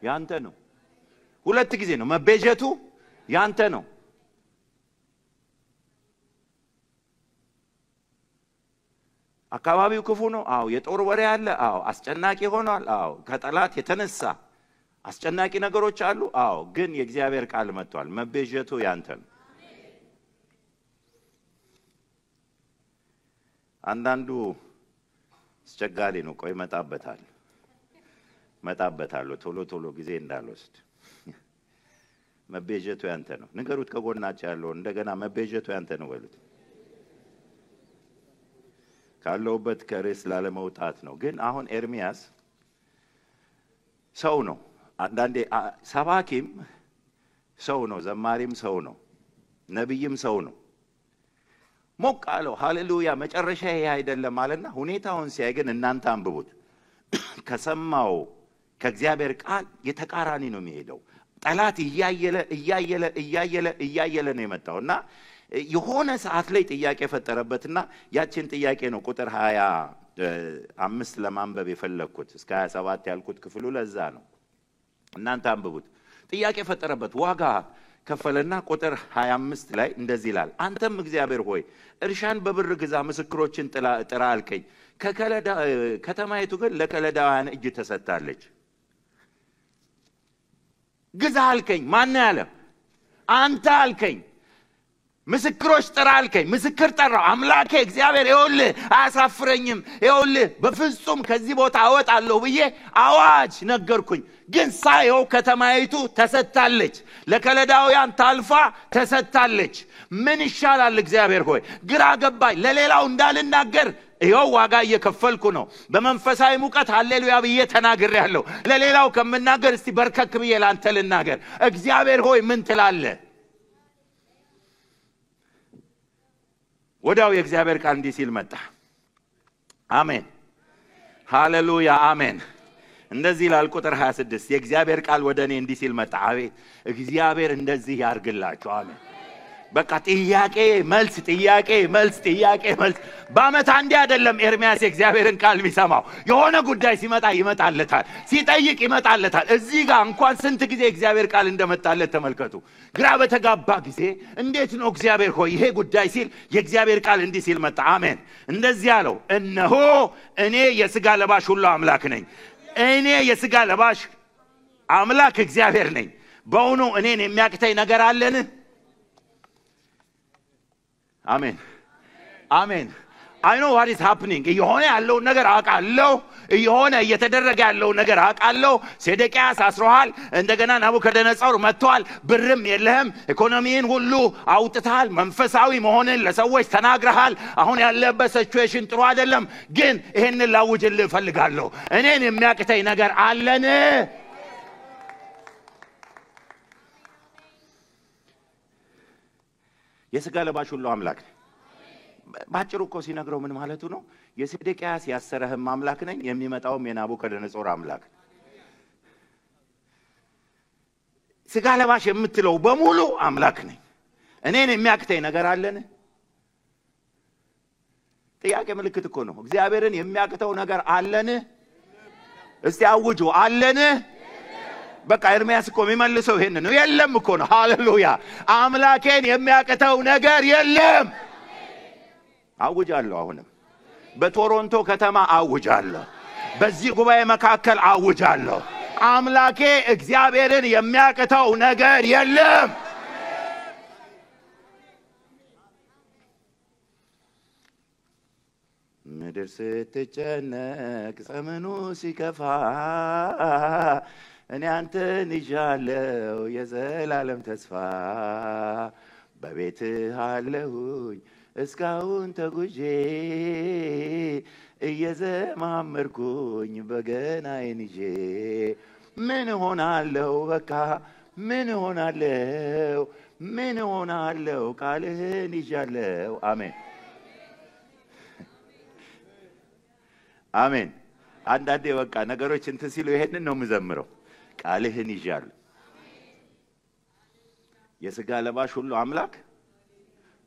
ያንተ ነው። ሁለት ጊዜ ነው መቤዠቱ ያንተ ነው። አካባቢው ክፉ ነው። አዎ የጦር ወሬ አለ። አዎ አስጨናቂ ሆኗል። አዎ ከጠላት የተነሳ አስጨናቂ ነገሮች አሉ። አዎ ግን የእግዚአብሔር ቃል መጥቷል። መቤዠቱ ያንተ ነው። አንዳንዱ አስቸጋሪ ነው። ቆይ መጣበታለሁ ቶሎ ጊዜ እንዳልወስድ። መቤዠቱ ያንተ ነው። ንገሩት ከጎናችሁ ያለው እንደገና መቤዠቱ ያንተ ነው በሉት። ካለውበት ከርዕስ ላለመውጣት ነው። ግን አሁን ኤርምያስ ሰው ነው። አንዳንዴ ሰባኪም ሰው ነው፣ ዘማሪም ሰው ነው፣ ነብይም ሰው ነው። ሞቅ አለው። ሃሌሉያ! መጨረሻ ይሄ አይደለም ማለትና ሁኔታውን ሲያይ ግን እናንተ አንብቡት። ከሰማው ከእግዚአብሔር ቃል የተቃራኒ ነው የሚሄደው። ጠላት እያየለ ነው የመጣውና የሆነ ሰዓት ላይ ጥያቄ ፈጠረበትና ያችን ጥያቄ ነው ቁጥር 5 ለማንበብ የፈለኩት እስከ 27 ያልኩት ክፍሉ ለዛ ነው። እናንተ አንብቡት። ጥያቄ ፈጠረበት። ዋጋ ከፈለና ቁጥር 25 ላይ እንደዚህ ይላል፣ አንተም እግዚአብሔር ሆይ እርሻን በብር ግዛ፣ ምስክሮችን ጥራ አልከኝ። ከተማይቱ ግን ለከለዳውያን እጅ ተሰጥታለች። ግዛ አልከኝ። ማን ያለ? አንተ አልከኝ። ምስክሮች ጥራ አልከኝ። ምስክር ጠራው። አምላኬ እግዚአብሔር ይኸውልህ አያሳፍረኝም፣ ይኸውልህ በፍጹም ከዚህ ቦታ አወጣለሁ ብዬ አዋጅ ነገርኩኝ። ግን ሳየው ከተማይቱ ተሰጥታለች፣ ለከለዳውያን ታልፋ ተሰጥታለች። ምን ይሻላል? እግዚአብሔር ሆይ ግራ ገባኝ። ለሌላው እንዳልናገር ይኸው ዋጋ እየከፈልኩ ነው። በመንፈሳዊ ሙቀት ሃሌሉያ ብዬ ተናግሬያለሁ። ለሌላው ከምናገር እስቲ በርከክ ብዬ ላንተ ልናገር። እግዚአብሔር ሆይ ምን ትላለህ? ወዲያው የእግዚአብሔር ቃል እንዲህ ሲል መጣ። አሜን ሃሌሉያ አሜን። እንደዚህ ይላል ቁጥር 26 የእግዚአብሔር ቃል ወደ እኔ እንዲህ ሲል መጣ። አቤት እግዚአብሔር እንደዚህ ያርግላችሁ። አሜን። በቃ ጥያቄ መልስ ጥያቄ መልስ ጥያቄ መልስ። በአመት አንዴ አይደለም ኤርሚያስ የእግዚአብሔርን ቃል ቢሰማው። የሆነ ጉዳይ ሲመጣ ይመጣለታል፣ ሲጠይቅ ይመጣለታል። እዚህ ጋር እንኳን ስንት ጊዜ እግዚአብሔር ቃል እንደመጣለት ተመልከቱ። ግራ በተጋባ ጊዜ እንዴት ነው እግዚአብሔር ሆይ ይሄ ጉዳይ ሲል የእግዚአብሔር ቃል እንዲህ ሲል መጣ። አሜን። እንደዚህ አለው፣ እነሆ እኔ የሥጋ ለባሽ ሁሉ አምላክ ነኝ። እኔ የሥጋ ለባሽ አምላክ እግዚአብሔር ነኝ። በእውኑ እኔን የሚያቅተኝ ነገር አለን? አሜን አሜን። I know what is happening። የሆነ ያለው ነገር አውቃለሁ። የሆነ እየተደረገ ያለው ነገር አውቃለሁ። ሴዴቅያስ አስሮሃል። እንደገና ናቡከደነጾር መጥቷል። ብርም የለህም። ኢኮኖሚን ሁሉ አውጥተሃል። መንፈሳዊ መሆንን ለሰዎች ተናግረሃል። አሁን ያለበት ሲቹዌሽን ጥሩ አይደለም። ግን ይሄንን ላውጅልህ እፈልጋለሁ። እኔን የሚያቅተኝ ነገር አለን? የሥጋ ለባሽ ሁሉ አምላክ ነኝ። ባጭሩ እኮ ሲነግረው ምን ማለቱ ነው? የሴዴቅያስ ያሰረህም አምላክ ነኝ፣ የሚመጣውም የናቡከደነጾር አምላክ። ሥጋ ለባሽ የምትለው በሙሉ አምላክ ነኝ። እኔን የሚያቅተኝ ነገር አለን? ጥያቄ ምልክት እኮ ነው። እግዚአብሔርን የሚያቅተው ነገር አለን? እስቲ አውጁ፣ አለን? በቃ ኤርሚያስ እኮ የሚመልሰው ይሄን ነው። የለም እኮ ነው። ሃሌሉያ። አምላኬን የሚያቅተው ነገር የለም። አውጃለሁ። አሁንም በቶሮንቶ ከተማ አውጃለሁ። በዚህ ጉባኤ መካከል አውጃለሁ። አምላኬ እግዚአብሔርን የሚያቅተው ነገር የለም። ምድር ስትጨነቅ ዘመኑ ሲከፋ እኔ አንተን ይዣለሁ የዘላለም ተስፋ። በቤትህ አለሁኝ እስካሁን ተጉዤ እየዘማመርኩኝ በገናዬን ይዤ ምን ሆናለሁ? በቃ ምን ሆናለሁ? ምን ሆናለሁ? ቃልህን ይዣለሁ። አሜን አሜን። አንዳንዴ በቃ ነገሮች እንትን ሲሉ ይሄንን ነው የምዘምረው። ቃልህን ይዣለሁ። የሥጋ ለባሽ ሁሉ አምላክ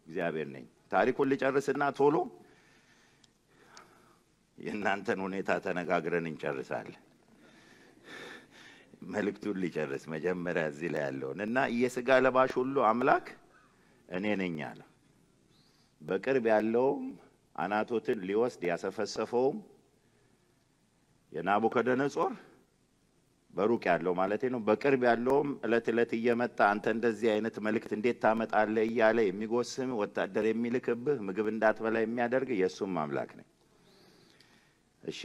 እግዚአብሔር ነኝ። ታሪኩን ልጨርስና ቶሎ የእናንተን ሁኔታ ተነጋግረን እንጨርሳለን። መልእክቱን ሊጨርስ መጀመሪያ እዚህ ላይ ያለውን እና የሥጋ ለባሽ ሁሉ አምላክ እኔ ነኝ አለ። በቅርብ ያለውም አናቶትን ሊወስድ ያሰፈሰፈውም የናቡከደነጾር በሩቅ ያለው ማለት ነው። በቅርብ ያለውም እለት እለት እየመጣ አንተ እንደዚህ አይነት መልእክት እንዴት ታመጣለህ እያለ የሚጎስም ወታደር የሚልክብህ ምግብ እንዳትበላ የሚያደርግ የሱም አምላክ ነኝ። እሺ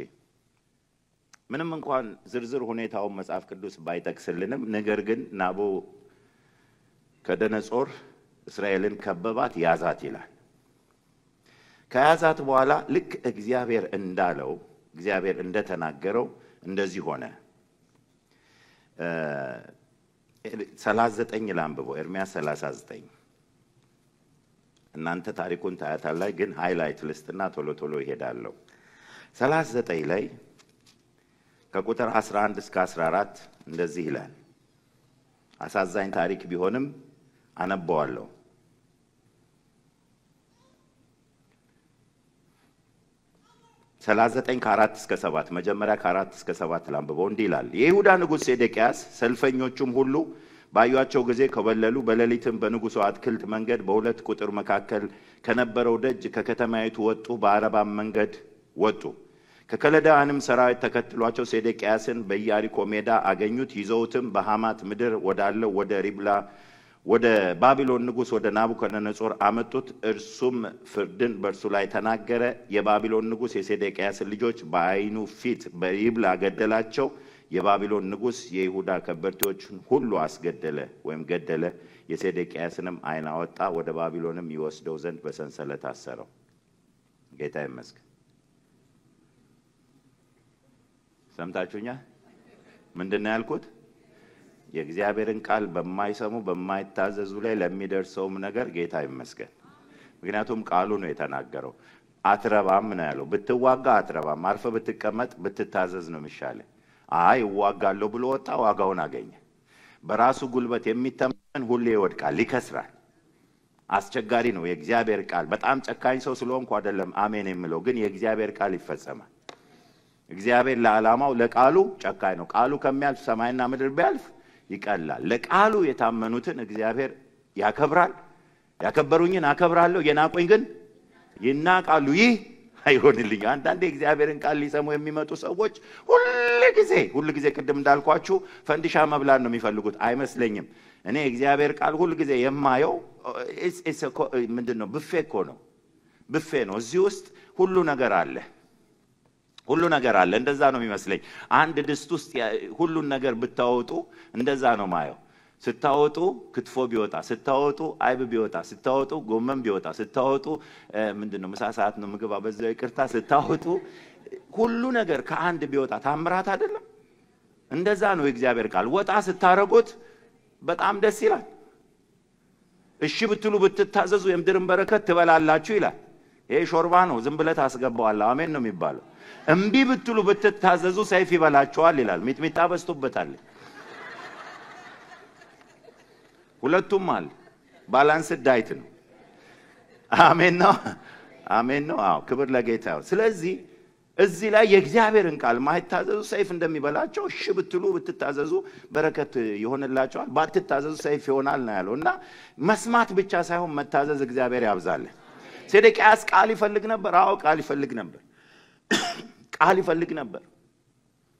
ምንም እንኳን ዝርዝር ሁኔታውን መጽሐፍ ቅዱስ ባይጠቅስልንም ነገር ግን ናቡከደነጾር እስራኤልን ከበባት፣ ያዛት ይላል። ከያዛት በኋላ ልክ እግዚአብሔር እንዳለው እግዚአብሔር እንደተናገረው እንደዚህ ሆነ። 39 ላንብበው። ኤርሚያስ 39 እናንተ ታሪኩን ታያታላችሁ፣ ግን ሃይላይት ልስትና ቶሎ ቶሎ ይሄዳለሁ። 39 ላይ ከቁጥር 11 እስከ 14 እንደዚህ ይላል። አሳዛኝ ታሪክ ቢሆንም አነበዋለሁ። 39 ከ4 እስከ 7 መጀመሪያ ከ4 እስከ 7 ላንብበው። እንዲህ ይላል። የይሁዳ ንጉሥ ሴዴቅያስ ሰልፈኞቹም ሁሉ ባዩአቸው ጊዜ ከበለሉ። በሌሊትም በንጉሡ አትክልት መንገድ በሁለት ቁጥር መካከል ከነበረው ደጅ ከከተማይቱ ወጡ፣ በአረባም መንገድ ወጡ። ከከለዳውያንም ሰራዊት ተከትሏቸው ሴዴቅያስን በኢያሪኮ ሜዳ አገኙት። ይዘውትም በሐማት ምድር ወዳለው ወደ ሪብላ ወደ ባቢሎን ንጉሥ ወደ ናቡከደነጾር አመጡት። እርሱም ፍርድን በእርሱ ላይ ተናገረ። የባቢሎን ንጉሥ የሴዴቅያስን ልጆች በዓይኑ ፊት በሪብላ ገደላቸው። የባቢሎን ንጉሥ የይሁዳ ከበርቴዎችን ሁሉ አስገደለ ወይም ገደለ። የሴዴቅያስንም ዓይን አወጣ፣ ወደ ባቢሎንም ይወስደው ዘንድ በሰንሰለት አሰረው። ጌታ ይመስገን። ሰምታችሁኛል? ምንድነው ያልኩት? የእግዚአብሔርን ቃል በማይሰሙ በማይታዘዙ ላይ ለሚደርሰውም ነገር ጌታ ይመስገን። ምክንያቱም ቃሉ ነው የተናገረው። አትረባም ነው ያለው። ብትዋጋ አትረባም፣ አርፈ ብትቀመጥ ብትታዘዝ ነው የሚሻለው። አይ እዋጋለሁ ብሎ ወጣ፣ ዋጋውን አገኘ። በራሱ ጉልበት የሚተማመን ሁሌ ይወድቃል፣ ይከስራል። አስቸጋሪ ነው የእግዚአብሔር ቃል። በጣም ጨካኝ ሰው ስለሆንኩ አይደለም አሜን የምለው፣ ግን የእግዚአብሔር ቃል ይፈጸማል። እግዚአብሔር ለዓላማው ለቃሉ ጨካኝ ነው። ቃሉ ከሚያልፍ ሰማይና ምድር ቢያልፍ ይቀላል። ለቃሉ የታመኑትን እግዚአብሔር ያከብራል። ያከበሩኝን አከብራለሁ፣ የናቁኝ ግን ይናቃሉ። ይህ አይሆንልኝ። አንዳንዴ እግዚአብሔርን ቃል ሊሰሙ የሚመጡ ሰዎች ሁሉ ጊዜ ቅድም እንዳልኳችሁ ፈንዲሻ መብላት ነው የሚፈልጉት። አይመስለኝም። እኔ እግዚአብሔር ቃል ሁሉ ጊዜ የማየው ምንድነው? ብፌ እኮ ነው። ብፌ ነው። እዚህ ውስጥ ሁሉ ነገር አለ። ሁሉ ነገር አለ። እንደዛ ነው የሚመስለኝ። አንድ ድስት ውስጥ ሁሉን ነገር ብታወጡ እንደዛ ነው ማየው። ስታወጡ ክትፎ ቢወጣ፣ ስታወጡ አይብ ቢወጣ፣ ስታወጡ ጎመን ቢወጣ፣ ስታወጡ ምንድነው ምሳ ሰዓት ነው ምግብ አበዛው ይቅርታ፣ ስታወጡ ሁሉ ነገር ከአንድ ቢወጣ ታምራት አይደለም? እንደዛ ነው የእግዚአብሔር ቃል። ወጣ ስታረጉት በጣም ደስ ይላል። እሺ ብትሉ ብትታዘዙ የምድርን በረከት ትበላላችሁ ይላል። ይሄ ሾርባ ነው፣ ዝም ብለህ ታስገባዋለህ። አሜን ነው የሚባለው። እምቢ ብትሉ ብትታዘዙ ሰይፍ ይበላችኋል ይላል። ሚጥሚጣ በስቶበታል። ሁለቱም አለ። ባላንስ ዳይት ነው። አሜን ነው። አሜን ነው። አዎ ክብር ለጌታ ይሁን። ስለዚህ እዚህ ላይ የእግዚአብሔርን ቃል ማይታዘዙ ሰይፍ እንደሚበላቸው፣ እሺ ብትሉ ብትታዘዙ በረከት ይሆንላችኋል፣ ባትታዘዙ ሰይፍ ይሆናል ነው ያለው። እና መስማት ብቻ ሳይሆን መታዘዝ እግዚአብሔር ያብዛልን። ሴዴቅያስ ቃል ይፈልግ ነበር። አዎ ቃል ይፈልግ ነበር። ቃል ይፈልግ ነበር፣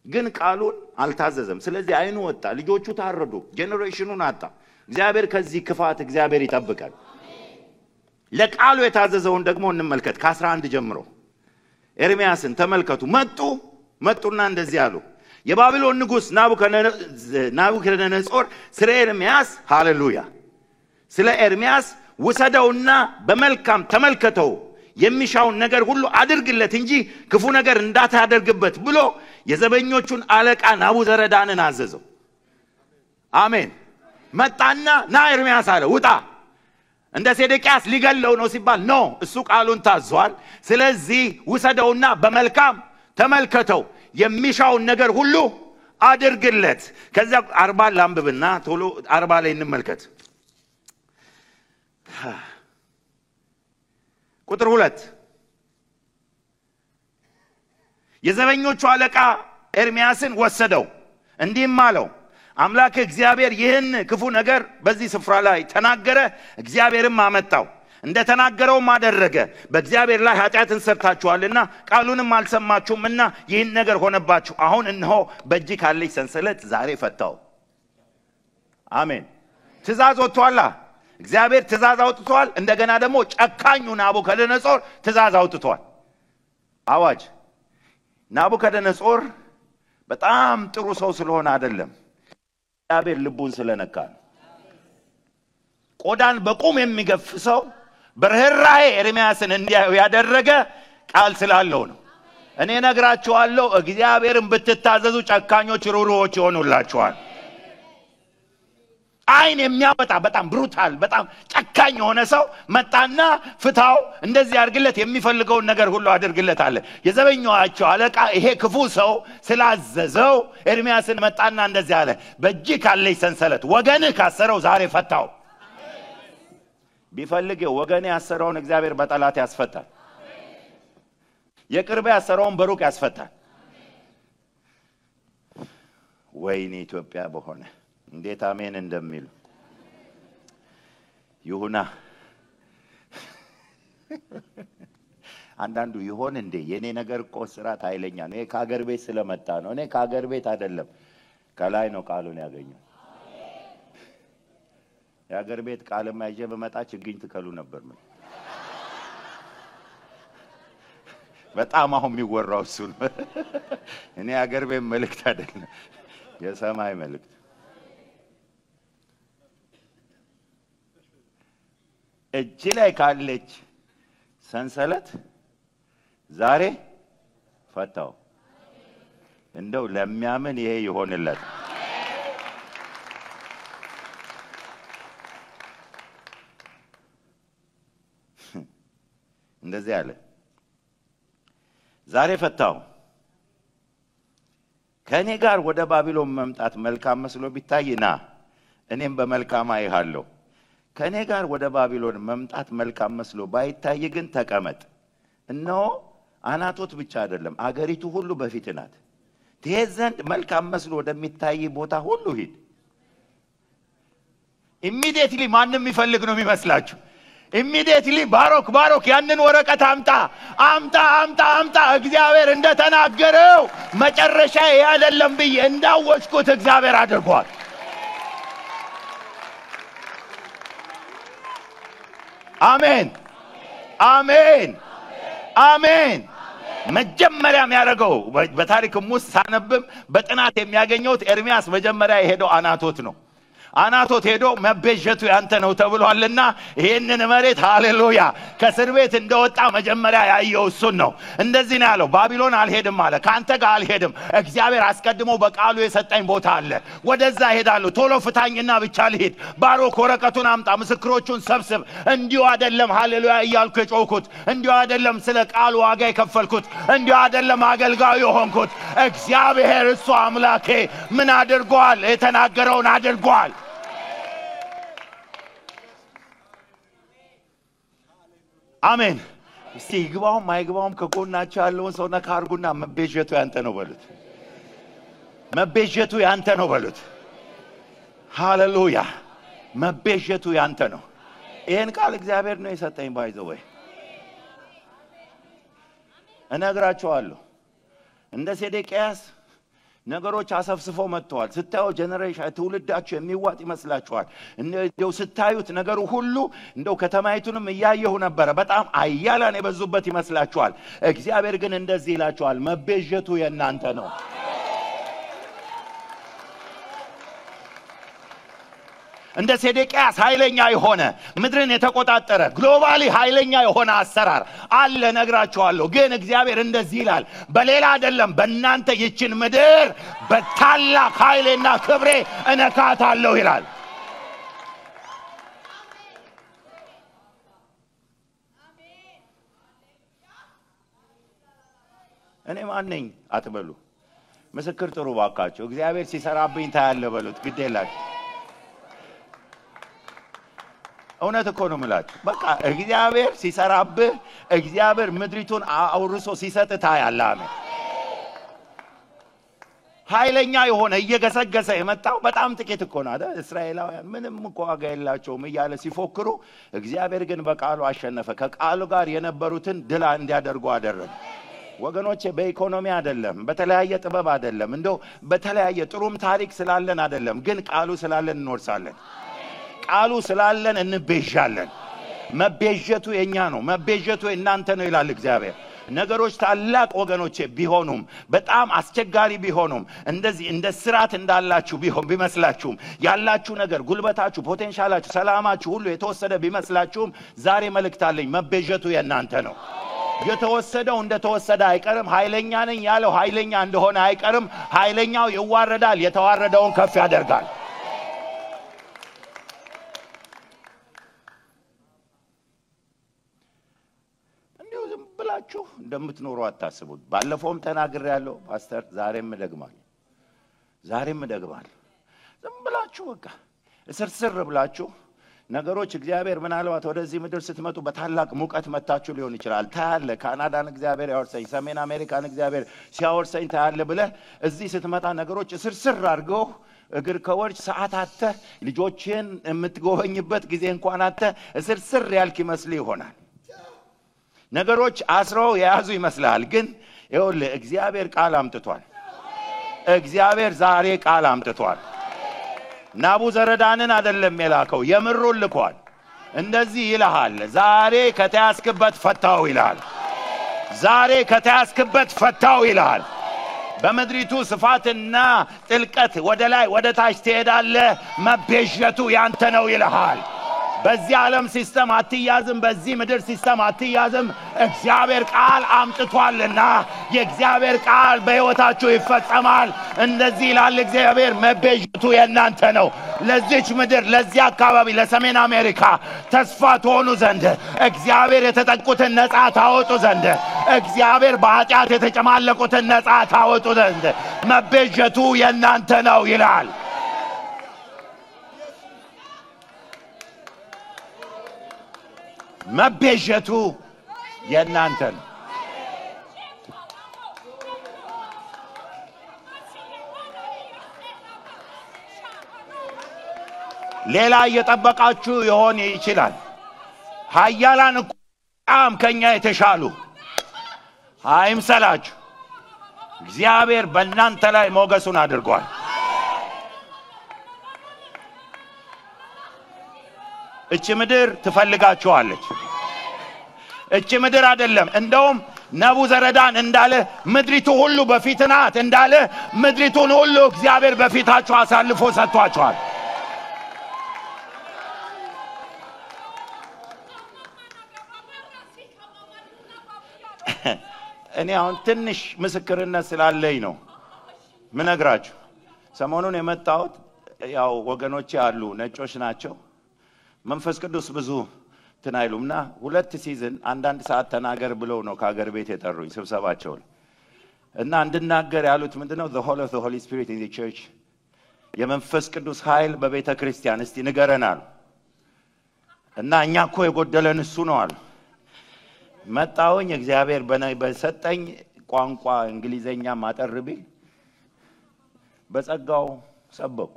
ግን ቃሉን አልታዘዘም። ስለዚህ አይኑ ወጣ፣ ልጆቹ ታረዱ፣ ጄኔሬሽኑን አጣ። እግዚአብሔር ከዚህ ክፋት እግዚአብሔር ይጠብቃል። ለቃሉ የታዘዘውን ደግሞ እንመልከት። ከ11 ጀምሮ ኤርምያስን ተመልከቱ። መጡና እንደዚህ አሉ። የባቢሎን ንጉሥ ናቡከደነጾር ስለ ኤርምያስ ሃሌሉያ፣ ስለ ኤርምያስ ውሰደውና በመልካም ተመልከተው፣ የሚሻውን ነገር ሁሉ አድርግለት እንጂ ክፉ ነገር እንዳታደርግበት ብሎ የዘበኞቹን አለቃ ናቡዘረዳንን አዘዘው። አሜን። መጣና ና ኤርምያስ አለ፣ ውጣ። እንደ ሴዴቅያስ ሊገለው ነው ሲባል ኖ፣ እሱ ቃሉን ታዟል። ስለዚህ ውሰደውና በመልካም ተመልከተው፣ የሚሻውን ነገር ሁሉ አድርግለት። ከዛ 40 ላንብብና ቶሎ 40 ላይ እንመልከት። ቁጥር 2 የዘበኞቹ አለቃ ኤርምያስን ወሰደው፣ እንዲህም አለው፣ አምላክ እግዚአብሔር ይህን ክፉ ነገር በዚህ ስፍራ ላይ ተናገረ፣ እግዚአብሔርም አመጣው፣ እንደተናገረውም አደረገ። በእግዚአብሔር ላይ ኃጢአትን ሰርታችኋልና ቃሉንም አልሰማችሁምና ይህን ነገር ሆነባችሁ። አሁን እነሆ በእጅ ካለች ሰንሰለት ዛሬ ፈታው። አሜን። ትእዛዝ ወጥቷል። እግዚአብሔር ትእዛዝ አውጥቷል። እንደገና ደግሞ ጨካኙ ናቡከደነጾር ትእዛዝ አውጥቷል። አዋጅ። ናቡከደነጾር በጣም ጥሩ ሰው ስለሆነ አይደለም፣ እግዚአብሔር ልቡን ስለነካ ነው። ቆዳን በቁም የሚገፍ ሰው በርህራሄ ኤርምያስን እንዲያዩ ያደረገ ቃል ስላለው ነው። እኔ ነግራችኋለሁ፣ እግዚአብሔርን ብትታዘዙ ጨካኞች ሩሩዎች ይሆኑላችኋል። አይን የሚያወጣ በጣም ብሩታል በጣም ጨካኝ የሆነ ሰው መጣና ፍታው፣ እንደዚህ አድርግለት፣ የሚፈልገውን ነገር ሁሉ አድርግለት አለ። የዘበኛቸው አለቃ ይሄ ክፉ ሰው ስላዘዘው ኤርምያስን መጣና እንደዚህ አለ፣ በእጅ ካለች ሰንሰለት ወገንህ ካሰረው ዛሬ ፈታው። ቢፈልግ ወገን ያሰረውን እግዚአብሔር በጠላት ያስፈታል። የቅርብ ያሰረውን በሩቅ ያስፈታል። ወይኔ ኢትዮጵያ በሆነ እንዴት አሜን እንደሚሉ ይሁና። አንዳንዱ ይሆን እንዴ የኔ ነገር እኮ ስራት ኃይለኛ ነው፣ እኔ ከሀገር ቤት ስለመጣ ነው። እኔ ከሀገር ቤት አይደለም ከላይ ነው ቃሉን ያገኘው። የሀገር ቤት ቃልማ ይዤ በመጣ ችግኝ ትከሉ ነበር። ምን በጣም አሁን የሚወራው እሱ ነው። እኔ ሀገር ቤት መልእክት አይደለም የሰማይ መልእክት። እጅ ላይ ካለች ሰንሰለት ዛሬ ፈታው። እንደው ለሚያምን ይሄ ይሆንለት። እንደዚህ አለ፣ ዛሬ ፈታው። ከኔ ጋር ወደ ባቢሎን መምጣት መልካም መስሎ ቢታይና እኔም በመልካም አይሃለሁ። ከኔ ጋር ወደ ባቢሎን መምጣት መልካም መስሎ ባይታይ ግን ተቀመጥ። እነሆ አናቶት ብቻ አይደለም አገሪቱ ሁሉ በፊት ናት። ትሄድ ዘንድ መልካም መስሎ ወደሚታይ ቦታ ሁሉ ሂድ። ኢሚዲየትሊ ማንም ይፈልግ ነው የሚመስላችሁ? ኢሚዲየትሊ ባሮክ ያንን ወረቀት አምጣ እግዚአብሔር እንደተናገረው መጨረሻ ያደለም ብዬ እንዳወጭኩት እግዚአብሔር አድርጓል። አሜን አሜን አሜን። መጀመሪያም ያደረገው በታሪክም ውስጥ ሳነብም በጥናት የሚያገኘው ኤርሚያስ መጀመሪያ የሄደው አናቶት ነው። አናቶት ሄዶ መቤዠቱ ያንተ ነው ተብሏልና ይሄንን መሬት ሃሌሉያ ከእስር ቤት እንደወጣ መጀመሪያ ያየው እሱን ነው። እንደዚህ ነው ያለው፣ ባቢሎን አልሄድም አለ። ካንተ ጋር አልሄድም፣ እግዚአብሔር አስቀድሞ በቃሉ የሰጠኝ ቦታ አለ፣ ወደዛ ሄዳለሁ። ቶሎ ፍታኝና ብቻ ልሂድ። ባሮክ ወረቀቱን አምጣ፣ ምስክሮቹን ሰብስብ። እንዲሁ አይደለም ሃሌሉያ እያልኩ የጮኩት፣ እንዲሁ አይደለም ስለ ቃሉ ዋጋ የከፈልኩት፣ እንዲሁ አይደለም አገልጋዩ የሆንኩት። እግዚአብሔር እሱ አምላኬ ምን አድርጓል? የተናገረውን አድርጓል። አሜን። እስቲ ይግባውም አይግባውም ከጎናቸው ያለውን ሰው ነካ አድርጉና መቤዠቱ ያንተ ነው በሉት። መቤዠቱ ያንተ ነው በሉት። ሃሌሉያ መቤዠቱ ያንተ ነው። ይሄን ቃል እግዚአብሔር ነው የሰጠኝ። ባይዘው ወይ እነግራቸዋለሁ እንደ ሴዴቅያስ ነገሮች አሰፍስፈው መጥተዋል። ስታዩ ጀነሬሽን ትውልዳችሁ የሚዋጥ ይመስላችኋል። እንደው ስታዩት ነገሩ ሁሉ እንደው ከተማይቱንም እያየሁ ነበር፣ በጣም አያላን የበዙበት ይመስላችኋል። እግዚአብሔር ግን እንደዚህ ይላችኋል፣ መቤዠቱ የእናንተ ነው። እንደ ሴዴቅያስ ኃይለኛ የሆነ ምድርን የተቆጣጠረ ግሎባሊ ኃይለኛ የሆነ አሰራር አለ ነግራችኋለሁ። ግን እግዚአብሔር እንደዚህ ይላል፣ በሌላ አይደለም በእናንተ ይችን ምድር በታላቅ ኃይልና ክብሬ እነካታለሁ ይላል። እኔ ማን ነኝ አትበሉ፣ ምስክር ጥሩ ባካችሁ። እግዚአብሔር ሲሰራብኝ ታያለ በሉት። ግድ የላችሁ እውነት እኮ ነው የምላችሁ። በቃ እግዚአብሔር ሲሰራብህ፣ እግዚአብሔር ምድሪቱን አውርሶ ሲሰጥ ታያለህ። አሜን። ኃይለኛ የሆነ እየገሰገሰ የመጣው በጣም ጥቂት እኮ ነው አይደል? እስራኤላውያን ምንም እኮ ዋጋ የላቸውም እያለ ሲፎክሩ፣ እግዚአብሔር ግን በቃሉ አሸነፈ። ከቃሉ ጋር የነበሩትን ድል እንዲያደርጉ አደረገ። ወገኖቼ በኢኮኖሚ አይደለም፣ በተለያየ ጥበብ አይደለም፣ እንደው በተለያየ ጥሩም ታሪክ ስላለን አይደለም፣ ግን ቃሉ ስላለን እንወርሳለን። ቃሉ ስላለን እንቤዣለን። መቤዠቱ የኛ ነው፣ መቤዠቱ እናንተ ነው ይላል እግዚአብሔር። ነገሮች ታላቅ ወገኖቼ ቢሆኑም በጣም አስቸጋሪ ቢሆኑም እንደዚህ እንደ ስራት እንዳላችሁ ቢመስላችሁም ያላችሁ ነገር ጉልበታችሁ፣ ፖቴንሻላችሁ፣ ሰላማችሁ ሁሉ የተወሰደ ቢመስላችሁም ዛሬ መልእክት አለኝ። መቤዠቱ የእናንተ ነው። የተወሰደው እንደተወሰደ አይቀርም። ኃይለኛ ነኝ ያለው ኃይለኛ እንደሆነ አይቀርም። ኃይለኛው ይዋረዳል፣ የተዋረደውን ከፍ ያደርጋል። ብላችሁ እንደምትኖሩ አታስቡት። ባለፈውም ተናግሬያለሁ ፓስተር፣ ዛሬም እደግማለሁ። ዝም ብላችሁ በቃ እስርስር ብላችሁ ነገሮች እግዚአብሔር ምናልባት ወደዚህ ምድር ስትመጡ በታላቅ ሙቀት መታችሁ ሊሆን ይችላል። ታያለ ካናዳን እግዚአብሔር ያወርሰኝ፣ ሰሜን አሜሪካን እግዚአብሔር ሲያወርሰኝ ታያለ ብለህ እዚህ ስትመጣ ነገሮች ስርስር አድርገው እግር ከወርጭ ሰዓት አተ ልጆችን የምትጎበኝበት ጊዜ እንኳን አተ ስርስር ያልክ ይመስል ይሆናል። ነገሮች አስረው የያዙ ይመስላል። ግን ይኸውልህ እግዚአብሔር ቃል አምጥቷል። እግዚአብሔር ዛሬ ቃል አምጥቷል። ናቡዘረዳንን አይደለም የላከው፣ የምሩን ልኳል። እንደዚህ ይልሃል፣ ዛሬ ከተያዝክበት ፈታው ይላል። ዛሬ ከተያዝክበት ፈታው ይላል። በመድሪቱ ስፋትና ጥልቀት ወደ ላይ ወደ ታች ትሄዳለህ፣ መቤዠቱ ያንተ ነው ይልሃል። በዚህ ዓለም ሲስተም አትያዝም፣ በዚህ ምድር ሲስተም አትያዝም። እግዚአብሔር ቃል አምጥቷልና የእግዚአብሔር ቃል በሕይወታችሁ ይፈጸማል። እንደዚህ ይላል እግዚአብሔር፣ መቤዠቱ የእናንተ ነው። ለዚች ምድር፣ ለዚህ አካባቢ፣ ለሰሜን አሜሪካ ተስፋ ትሆኑ ዘንድ እግዚአብሔር የተጠቁትን ነፃ ታወጡ ዘንድ እግዚአብሔር በኃጢአት የተጨማለቁትን ነፃ ታወጡ ዘንድ መቤዠቱ የእናንተ ነው ይላል። መቤዠቱ የእናንተ ነው። ሌላ እየጠበቃችሁ ይሆን ይችላል። ኃያላን ቋም ከኛ የተሻሉ አይምሰላችሁ። እግዚአብሔር በእናንተ ላይ ሞገሱን አድርጓል። እቺ ምድር ትፈልጋችኋለች። እቺ ምድር አይደለም እንደውም ናቡዘረዳን እንዳለ ምድሪቱ ሁሉ በፊት ናት እንዳለ ምድሪቱን ሁሉ እግዚአብሔር በፊታችሁ አሳልፎ ሰጥቷችኋል። እኔ አሁን ትንሽ ምስክርነት ስላለኝ ነው ምነግራችሁ። ሰሞኑን የመጣሁት ያው ወገኖቼ አሉ ነጮች ናቸው። መንፈስ ቅዱስ ብዙ ትናይሉምና 2 ሲዝን አንዳንድ ሰዓት ተናገር ብለው ነው ከሀገር ቤት የጠሩኝ ስብሰባቸው እና እንድናገር ያሉት ምንድነው the whole of the Holy Spirit in the church የመንፈስ ቅዱስ ኃይል በቤተ ክርስቲያን እስቲ ንገረናል። እና እኛ እኮ የጎደለን እሱ ነው አሉ። መጣውኝ እግዚአብሔር በሰጠኝ ቋንቋ እንግሊዘኛ ማጠርቢ በጸጋው ሰበኩ።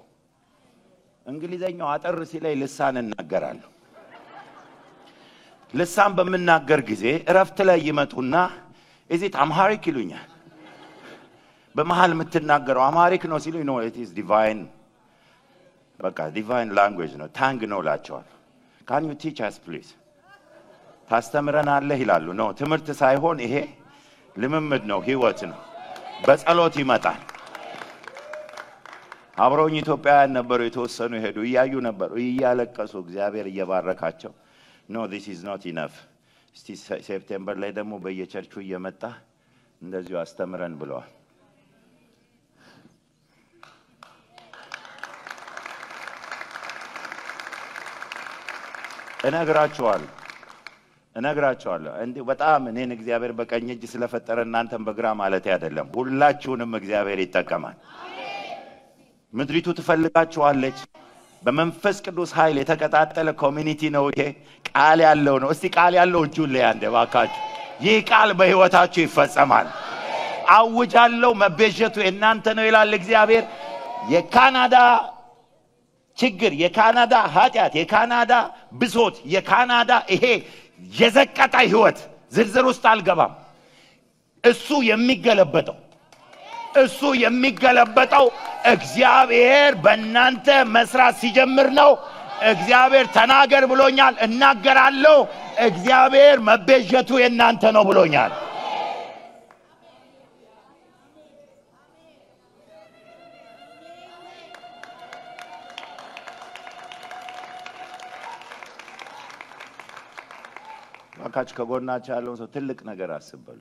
እንግሊዘኛው አጠር ሲላይ ልሳን እናገራለሁ። ልሳን በመናገር ጊዜ እረፍት ላይ ይመጡና እዚህ አምሃሪክ ይሉኛል። በመሃል የምትናገረው አምሃሪክ ነው ሲሉኝ ነው it is divine በቃ divine language ነው ታንግ ነው ላቸዋል። can you teach us please ታስተምረናለህ ይላሉ። ነው ትምህርት ሳይሆን ይሄ ልምምድ ነው፣ ህይወት ነው። በጸሎት ይመጣል። አብረውኝ ኢትዮጵያውያን ነበሩ፣ የተወሰኑ ሄዱ፣ እያዩ ነበሩ፣ እያለቀሱ እግዚአብሔር እየባረካቸው no this is not enough እስቲ ሴፕቴምበር ላይ ደግሞ በየቸርቹ እየመጣ እንደዚሁ አስተምረን ብለዋል። እነግራችኋለሁ እንዴ በጣም እኔን እግዚአብሔር በቀኝ እጅ ስለፈጠረ እናንተም በግራ ማለት አይደለም። ሁላችሁንም እግዚአብሔር ይጠቀማል። ምድሪቱ ትፈልጋችኋለች። በመንፈስ ቅዱስ ኃይል የተቀጣጠለ ኮሚኒቲ ነው ይሄ። ቃል ያለው ነው። እስቲ ቃል ያለው እጁን ላይ አንዴ ባካችሁ። ይህ ቃል በህይወታችሁ ይፈጸማል። አውጃለሁ፣ መቤዠቱ የእናንተ ነው ይላል እግዚአብሔር። የካናዳ ችግር፣ የካናዳ ኃጢአት፣ የካናዳ ብሶት፣ የካናዳ ይሄ የዘቀጠ ህይወት ዝርዝር ውስጥ አልገባም። እሱ የሚገለበጠው እግዚአብሔር በእናንተ መስራት ሲጀምር ነው። እግዚአብሔር ተናገር ብሎኛል፣ እናገራለሁ። እግዚአብሔር መቤዠቱ የእናንተ ነው ብሎኛል። ባካች ከጎናችሁ ያለውን ሰው ትልቅ ነገር አስበሉ።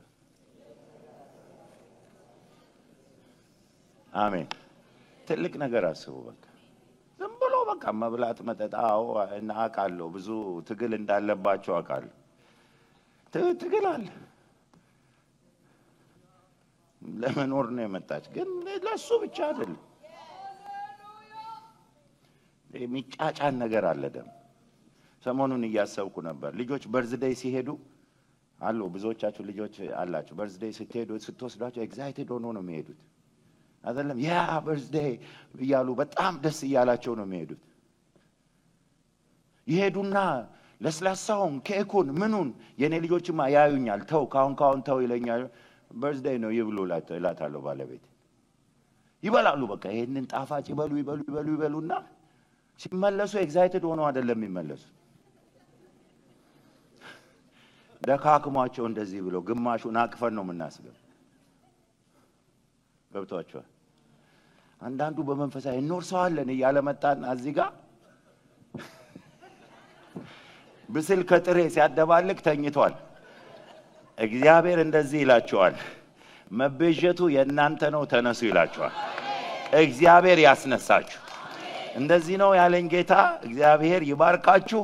አሜን። ትልቅ ነገር አስቡ። በቃ ዝም ብሎ በቃ መብላት መጠጣው እና አቃለው ብዙ ትግል እንዳለባቸው አቃለው። ትግል አለ። ለመኖር ነው የመጣች፣ ግን ለሱ ብቻ አይደለም። የሚጫጫን ነገር አለ ደግሞ ሰሞኑን እያሰብኩ ነበር ልጆች በርዝዴይ ሲሄዱ አሉ ብዙዎቻችሁ ልጆች አላችሁ በርዝዴይ ስትሄዱ ስትወስዷቸው ኤክሳይትድ ሆኖ ነው የሚሄዱት አይደለም ያ በርዝዴይ ይያሉ በጣም ደስ ይያላቸው ነው የሚሄዱት ይሄዱና ለስላሳውን ኬኩን ምኑን የኔ ልጆችማ ያዩኛል ተው ካሁን ተው ይለኛል በርዝዴይ ነው ይብሉ እላታለሁ ባለቤት ይበላሉ በቃ ይሄንን ጣፋጭ ይበሉና ሲመለሱ ኤክሳይትድ ሆኖ አይደለም የሚመለሱ ደካክሟቸው እንደዚህ ብሎ ግማሹን አቅፈን ነው የምናስገው ገብቷቸዋል አንዳንዱ በመንፈሳዊ እንወርሰዋለን እያለ መጣን እዚህ ጋር ብስል ከጥሬ ሲያደባልቅ ተኝቷል እግዚአብሔር እንደዚህ ይላቸዋል መበጀቱ የእናንተ ነው ተነሱ ይላቸዋል እግዚአብሔር ያስነሳችሁ እንደዚህ ነው ያለኝ ጌታ እግዚአብሔር ይባርካችሁ